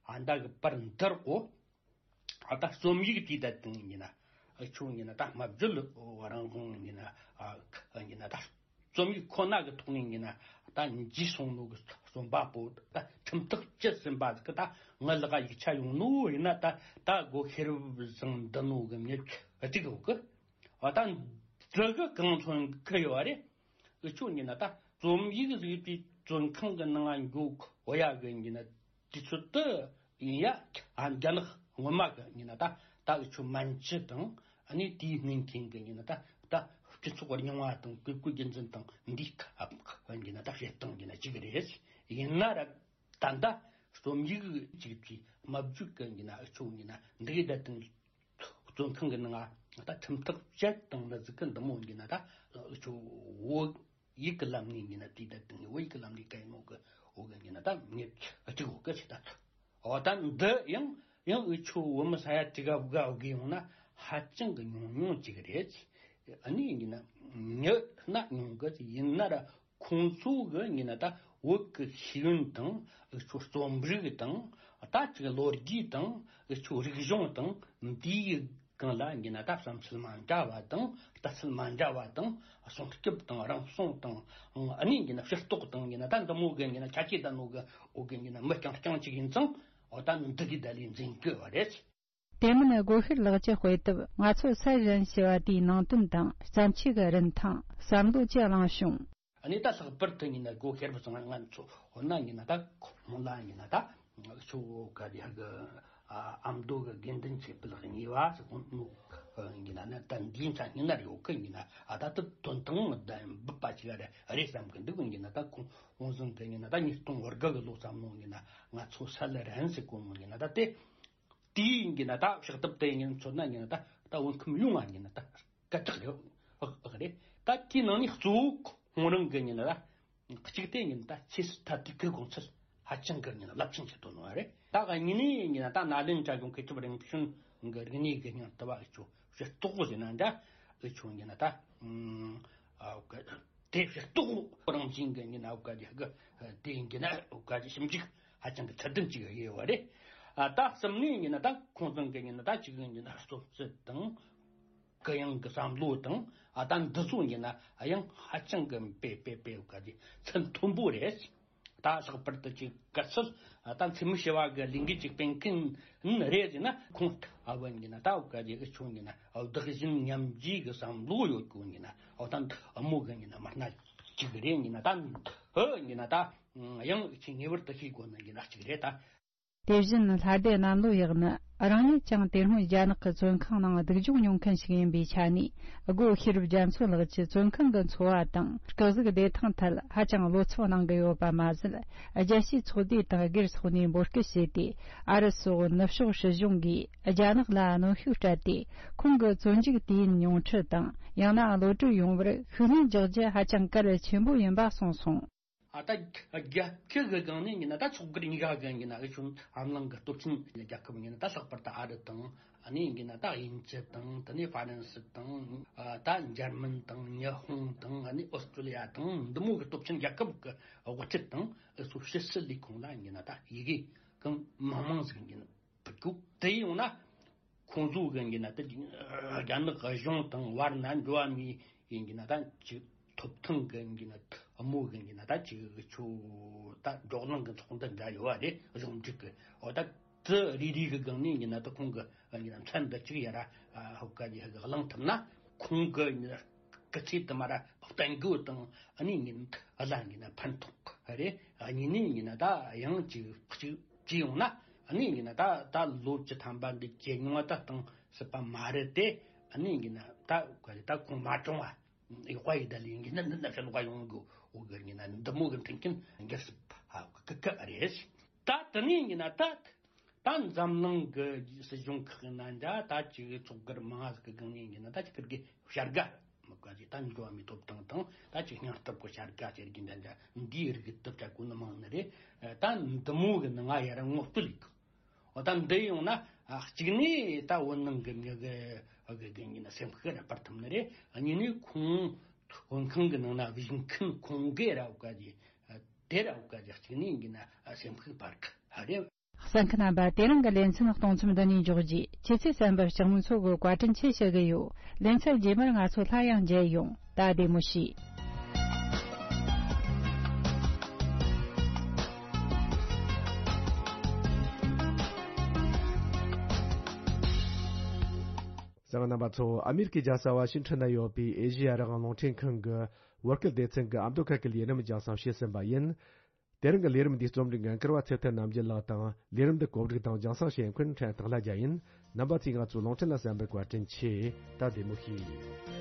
ཨ་ད་གི་བར་འདིར་གོ་ཨ་ད་རྩོམ་ཡིག་དེ་ད་དུང་ཡིན་ན་ཨ་ཆུང་ཡིན་ན་ད་སྨྲ་བརྗོད་རང་དབང་ཡིན་ན་ཨ་ཡིན་ན་ད་རྩོམ་ཡིག་ཁོ་ན་གི་ཐོག་ནས་ཡིན་ན་ད་འཇིག་སོང་ནོ་གི་རྩོམ་པ་པོ་ད་ཁྲིམས་ཐག་བཅད་ཟིན་པ་གི་ད་ངའི་ལག་ཡིག་ཆ་ཡོང་ནོ་ཡིན་ན་ད་ད་སྒོ་ཤེས་རབ་བཟང་འདི་ནོ་གི་མྱི་གཅིག་ཡོད་གི། ཨ་ད་འདི་གི་གང་མཚོན་གི་ཡོད་རེད། འུ་ཆོ་ཡིན་ན་ད་རྩོམ་ཡིག་བཟོས་པའི་བཙོན་ཁང་གི་ནང་འགྱོ་གོ་ཡ་གི་ཡིན་ན་དུས་ཚོད་དུ་ཡིན་ཡ། ཨ་རྒྱ་ནག་སྔོན་མ་གི་ཡིན་ན་ད་ད་འུ་ཆོ་མན་ཇུ་དང་ཨ་ནི་དེའི་སྔོན་ཐེངས་གི་ཡིན་ན་ད་ད་སྤྱི་ཚོགས་རྙིང་བ་དང་བཀས་བཀོད་རྒྱུད་འཛིན་དང་འདིའི་ཁ་ཡིན་ན་ད་བྱེད་སྟངས་ཡིན་ན་གཅིག་རེད། ཡིན་ན་ར་ད་ད་རྩོམ་ཡིག་ཅིག་གི་སྨྲ་བརྗོད་གི་ཡིན་ན་འུ་ཆོ་ཡིན་ན་འདི་ད་དུང་བཙོན་ཁང་གི་ནང་ད་ཁྲིམས་ཐག་བཅད་བཏང་ན་ཟིག་གི་འདི་མོ་ཡིན་ན་ད་འུ་ཆོ་བོད་ཡིག་གི་ལམ་ནས་ཡིན་ན་དེ་ད་དུང་བོད་ཡིག་གི་ལམ་ནས་ག་ཡིན་ནོ་གི་ འོ་གི་ཡིན་ན་ད་ངས་གཅིག་འོ་གི་ཆེ་ད་ཐུ། འོ་ད་འདི་ཡང་ཡང་འུ་ཆོ་བོད་མི་ས་ཡ་དྲུག་ག་བུ་ག་འོ་གི་ཡོང་ན་ཧ་ཅང་གི་ཉུང་ཉུང་ཅིག་རེད། ཨ་ནི་ཡིན་ན་ཉི་ན་ཉུང་གི་ཡིན་ན་ར་ཁོང་ཚོ་གི་ཡིན་ན་ད་བོད་གི་ཤེས་ཡོན་དང་འུ་ཆོ་རྩོམ་རིག་དང་ད་ཅིག་ལོ་རྒྱུས་དང་འུ་ཆོ་རིག་གཞུང་དང་འདིའི་གང་ལ་ཡིན་ན་ད་བསམ་ཚུལ་མ་འདྲ་བ་དང་ལྟ་ཚུལ་མ་འདྲ་བ་དང་སྲུང་སྐྱོབ་དང་རང་སྲུང་དང་ཨ་ནི་ཡིན་ན་ཕྱིར་རྟོག་དང་ཡིན་ན་ད་འདི་མོ་གི་ཡིན་ན་ཆ་ཆེ་ད་ནོ་གི་འོ་གི་ཡིན་ན་མི་རྐྱང་རྐྱང་ཅིག་ཡིན་ཙང་འོ་ད་འདི་གི་ད་ལས་འཛིན་གི་བ་རེད། དེ་མིན་སྒོ་ཤེར་ལགས་ཀྱི་དཔེ་དེབ་ང་ཚོ་སད་གཞན་ཞེས་པ་དེའི་ནང་དོན་དང་བརྩམས་ཆོས་ཀྱི་རིན་ཐང་བསམ་བློ་ཅི་གླེང་བྱུང་། ཨ་ནི་ད་ལྷག་པར་དུ་ཡིན་ན་སྒོ་ཤེར་བ་ཚང་ང་ཚོ་འོ་ན་ཡིན་ན་ད་ཁོང་ལ་ཡིན་ན་ད་ཁྱོད་ག་རེ་གི་ཨ་ཨ་མདོ་གི་དགེ་འདུན་ཆོས་འཕེལ་གཉིས་པ་ཟེར་ཁོང་ནུ་ཡིན་ན་ནི་ད་འདིའི་ཆ་ཡིན་ན་རེ་འོ་ཁ་ཡིན་ན་ཨ་ད་ད་དོན་དང་ད་འབུད་པ་ཅིག་རེ་རེད་བསམ་གི་འདུག་ཡིན་ན་ད་ཁོང་ཁོང་ཚང་གི་ཡིན་ན་ད་ཉིས་སྟོང་བར་དགའ་གི་ལོ་ཙམ་ནང་ཡིན་ན་ང་ཚོ་ས་ལ་རན་ཟེར་གོ་མོ་ཡིན་ན་ད་དེ། དེའི་ཡིན་གྱི་ན་ད་ཕྱག་དེབ་དེ་ཡིན་མཚོན་ན་ཡིན་ན་ད་ད་བོད་ཁམས་ཡོངས་ལ་ཡིན་ན་ད་སྐད་གྲགས་ཡོད་ཨག་རེད། ད་དེའི་ནང་ནས་གཙོ་བོ་ཁོང་རང་གི་ཡིན་ན་ད་གཅིག་དེ་ཡིན་ད་ཆེས་སུ་ད་དུས་ཀའི་དགོངས་ཚུལ་ཧ་ཅང་གི་ཡིན་ན་རླབས་ཆེན་ཆེད་དུ་གནང་བ་རེད། ད་གཉིས་ནས་ཡིན་ན་ད་ནཱ་ལེནྡྲ་གི་མཁས་གྲུབ་རིམ་བྱོན་གི་རིག་གནས་གི་སྙིང་བསྟོད་པ་ཨེ་ཆོ་ཞེས་རྟོགས་པོ་ཟེར་ན་འདྲ་ཨེ་ཆོ་ཡིན་ན་ད་ཨ་དེ་ཕྱིར་རྟོག་རང་བཞིན་གྱི་ཡིན་ན་འོ་ག་དེ་གི་དེ་ཡིན་གྱི་ན་འོ་ག་དེ་ཞིབ་འཇུག་ཧ་ཅང་གི་ཚད་ལྡན་ཅིག་ཡོད་པ་རེད། ཨ་ད་གསུམ་ནས་ཡིན་ན་ད་ཁོང་ཚང་གི་ཡིན་ན་ད་གཅིག་ཡིན་གྱི་ན་རྩོམ་རྩལ་དང་གུ་ཡངས་ཀྱི་བསམ་བློ་དང་ཨ་ད་འདི་ཚོ་ཡིན་ན་ཡང་ཧ་ཅང་གི་དཔེ་དཔེ་དཔེ་འོ་ག་དེ་ཚད་མཐོན་པོ་རེད། ད་ལྷག་པར་དུ་ཅིག་གལ་སྲིད་ད་འཚེ་མེད་ཞི་བ་གི་ལས་འགུལ་ཅིག་སྤེལ་མཁན་རེད་ཟེར་ན་ཁོང་ཨ་བོ་ཡིན་ན་ད་འོ་ག་དེ་གི་ཆུང་ཡིན་ན་བདག་གཞན་མཉམ་བརྗེ་གི་བསམ་བློ་ཡོད་གོ་ཡིན་ན་འོ་ད་འདི་ཨ་མོ་གི་ཡིན་ན་མི་སྣ་གཅིག་རེད་ཡིན་ན་ད་འདི་ཡིན་ན་ད་ཡང་ཅིག་ངེས་པར་དུ་ཤེས་དགོས་ནི་ཡིན་ན་གཅིག་རེད་ད། དེ་བཞིན་ལྷ་སྡེ་གནམ་ལོ་ཡག་ནི་རང་ཉིད་ཀྱང་དེ་སྔོན་རྒྱ་ནག་གི་བཙོན་ཁང་ནང་སྡུག་སྦྱོང་མྱོང་མཁན་ཞིག་ཡིན་པའི་ཆ་ནས་སྒོ་ཤེས་རབ་རྒྱ་མཚོ་ལགས་ཀྱི་བཙོན་ཁང་གི་འཚོ་བ་དང་སྐུ་གཟུགས་བདེ་ཐང་ཐད་ཧ་ཅང་བློ་འཚབ་གནང་གི་ཡོད་པ་མ་ཟད། རྒྱལ་སྤྱིའི་ཚོགས་སྡེ་དང་སྒེར་སོགས་ནས་འབོད་སྐུལ་བྱས་ཏེ་ཨ་རི་སོགས་ནུབ་ཕྱོགས་སྲིད་གཞུང་གིས་རྒྱ་ནག་ལ་གནོན་ཤུགས་སྤྲད་དེ་ཁོང་གི་བཙོན་འཇུག་དུས་ཡུན་ཉུང་འཕྲི་དང་ཡང་ན་གློད་གྲོལ་ཡོང་བར་ཤུགས་སྣོན་རྒྱག་རྒྱུ་ཧ་ཅང་གལ་ཆེན་པོ་ཡིན་པ་གསུངས་སོང་། ཨ་ད་རྒྱལ་ཁབ་ཀྱི་སྒང་ནས་ཡིན་ན་ད་ཚོགས་སྒེར་གཉིས་ཀ་གི་ཡིན་ན་ཨེ་ཆུང་ཨམ་ལང་གི་སྟོབས་ཆེན་རྒྱལ་ཁབ་ཡིན་ན་ད་ལྷག་པར་དུ་ཨ་རི་དང་ཨ་ནི་ཡིན་ན་ད་དབྱིན་ཇི་དང་དེ་ནས་ཧྥ་རན་སི་དང་ཨ་ད་འཇར་མན་དང་ཉི་ཧོང་དང་ཨ་ནི་ཨོ་སི་ཀྲུ་ལི་ཡ་དང་འདི་མོ་གི་སྟོབས་ཆེན་རྒྱལ་ཁབ་ཀྱི་དབུ་ཁྲིད་དང་ཨེ་ཚོ་ཕྱི་སྲིད་ལས་ཁུངས་ལ་ཡིན་ན་ད་ཡི་གེ་གང་མང་མང་ཟིག་ཡིན་ཕུལ་གོ། དེ་ཡོང་ན་ཁོང་ཚོ་གི་ཡིན་ན་ད་རྒྱ་ནག་གཞུང་དང་བར་ན་འགྲོ་བ་མི་ཡིན་གྱི་ན་ད་ཅིག་ཐོབ་ཐང་གི་ཡིན་ན་དམོ་གི་ཡིན་ན་ད་ཅིག་ཆོ་ད་འགྲོ་གླེང་གི་ཚོགས་འདུ་འདྲ་ཡོད་བ་རེད། གཞུང་འབྲེལ་གི་འོ་ད་དེ་རེ་རེ་གི་སྒང་ནས་ཡིན་ན་ད་ཁོང་གི་ཡིན་ན་མཚན་འདི་གཅིག་ཡ་ར་ཧོ་ག་ཡི་ཧ་གི་གླེང་ཐུབ་ན་ཁོང་གི་ཡིན་ན་སྐུ་ཚེ་དུ་མ་ར་བརྟན་དགོས་དང་ཨ་ནི་ཡིན་ཨ་ལ་ཡིན་ན་ཕན་ཐོགས་རེད། ཨ་ནི་ནི་ཡིན་ན་ད་ཡང་ཅིག་གཅིག་ཅི་ཡོང་ན་ཨ་ནི་ཡིན་ན་ད་ད་ལོ་བཅུ་ཐམ་པ་འདི་ཇེ་ཉུང་བ་ད་གཏོང་སྲིད་པ་མ་རེད་དེ། ཨ་ནི་ཡིན་ན་ད་ག་རེ་ད་ཁོང་མ་གྲོངས་བ་ཡག་པ་ཡི་ད་ལི་ཡིན་གྱི་ན་འདི་ན་ཕྱིར་ལོག་ཡོང་དགོས་འོ་གི་ཡིན་ན་འདི་མོ་གི་མཐུན་རྐྱེན་འགྱུར་སྲིད་པ་གི་གི་རེད། ད་དེ་ནས་ཡིན་ན་ད་ད་འཛམ་གླིང་གི་སྲིད་གཞུང་ཁག་ཡིན་ན་འདྲ་ད་ཅིག་ཚོགས་སྒེར་མང་ཟིག་གི་སྒང་ནས་ཡིན་ན་ད་ཅིག་ཁིར་གི་བྱ་དགའ། མི་དགའ་ཅིག་ད་འགྲོ་བ་མིའི་ཐོབ་ཐང་དང་ད་ཅིག་སྙིང་སྟོབས་ཀྱི་བྱ་དགའ་ཟེར་གྱི་འདྲ་འདྲ་འདིའི་རིགས་ཀྱི་ཐོབ་བྱ་དགོས་ནི་མང་ནི་རེད། ད་འདི་མོ་གི་ནི་ང་ཡར་ངོ་སྤྲོད་ལས་གི་འོ་ད་འདི་ཡོང་ན་གཅིག་ནས་ད་བོད་ནང་གི་མི་གི་གི་གི་ཡིན་ན་སེམས་ཤུགས་ར་སྤར་ཐུབ་ནི་རེད། གཉིས་ནས་ཁོང་བོད་ཁང་གི་ནང་ན་བཞུགས་མཁན་ཁོང་གི་ར་བ་ག་ཅི་དེ་ར་བ་ག་ཅི་གཅིག་ནས་ཡིན་ན་སེམས་ཤུགས་སྤར་གི་རེད། གསན་མཁན་རྣམ་པ། དེ་རིང་གི་ལེ་ཚན་གཏོང་མཚམས་འདི་ནས་འཇོག་རྒྱུ། ཁྱེད་ཚོས་གསན་པར་ལྕགས་མོ་མཚོ་གི་བཀའ་དྲིན་ཆེ་ཞུ་གི་ཡོད། ལེ་ཚན་རྗེས་མར་ང་ཚོ་སླར་ཡང་མཇལ་ཡོང་། ད་བདེ་མོ་བྱོས། གསན་མཁན་རྣམ་པ་ཚོ། ཨ་མེ་རི་ཀའི་རྒྱལ་ས་ཝ་ཤིང་ཊོན་ན་ཡོད་པའི་ཨེ་ཤེ་ཡ་རང་དབང་རླུང་འཕྲིན་ཁང་གི་བོད་སྐད་སྡེ་ཚན་གྱི་ཨ་མདོ་ཁ་སྐད་ལས་རིམ་རྒྱང་སྲིང་བྱས་ཟིན་པ་ཡིན། དེ་རིང་གི་ལས་རིམ་འདིའི་རྩོམ་སྒྲིག་འགན་འཁུར་བ་ཚེ་ཐར་རྣམ་རྒྱལ་ལགས་དང་། ལས་རིམ་འདི་གོ་སྒྲིག་དང་རྒྱང་སྲིང་བྱེད་མཁན་ཕྲན་སྟག་ལྷ་རྒྱལ་ཡིན། རྣམ་པ་ཚོས་ང་ཚོའི་རླུང་འཕྲིན་ལ་གསན་པར་བཀའ་དྲིན་ཆེ། ད་བདེ་མོ་བྱོས།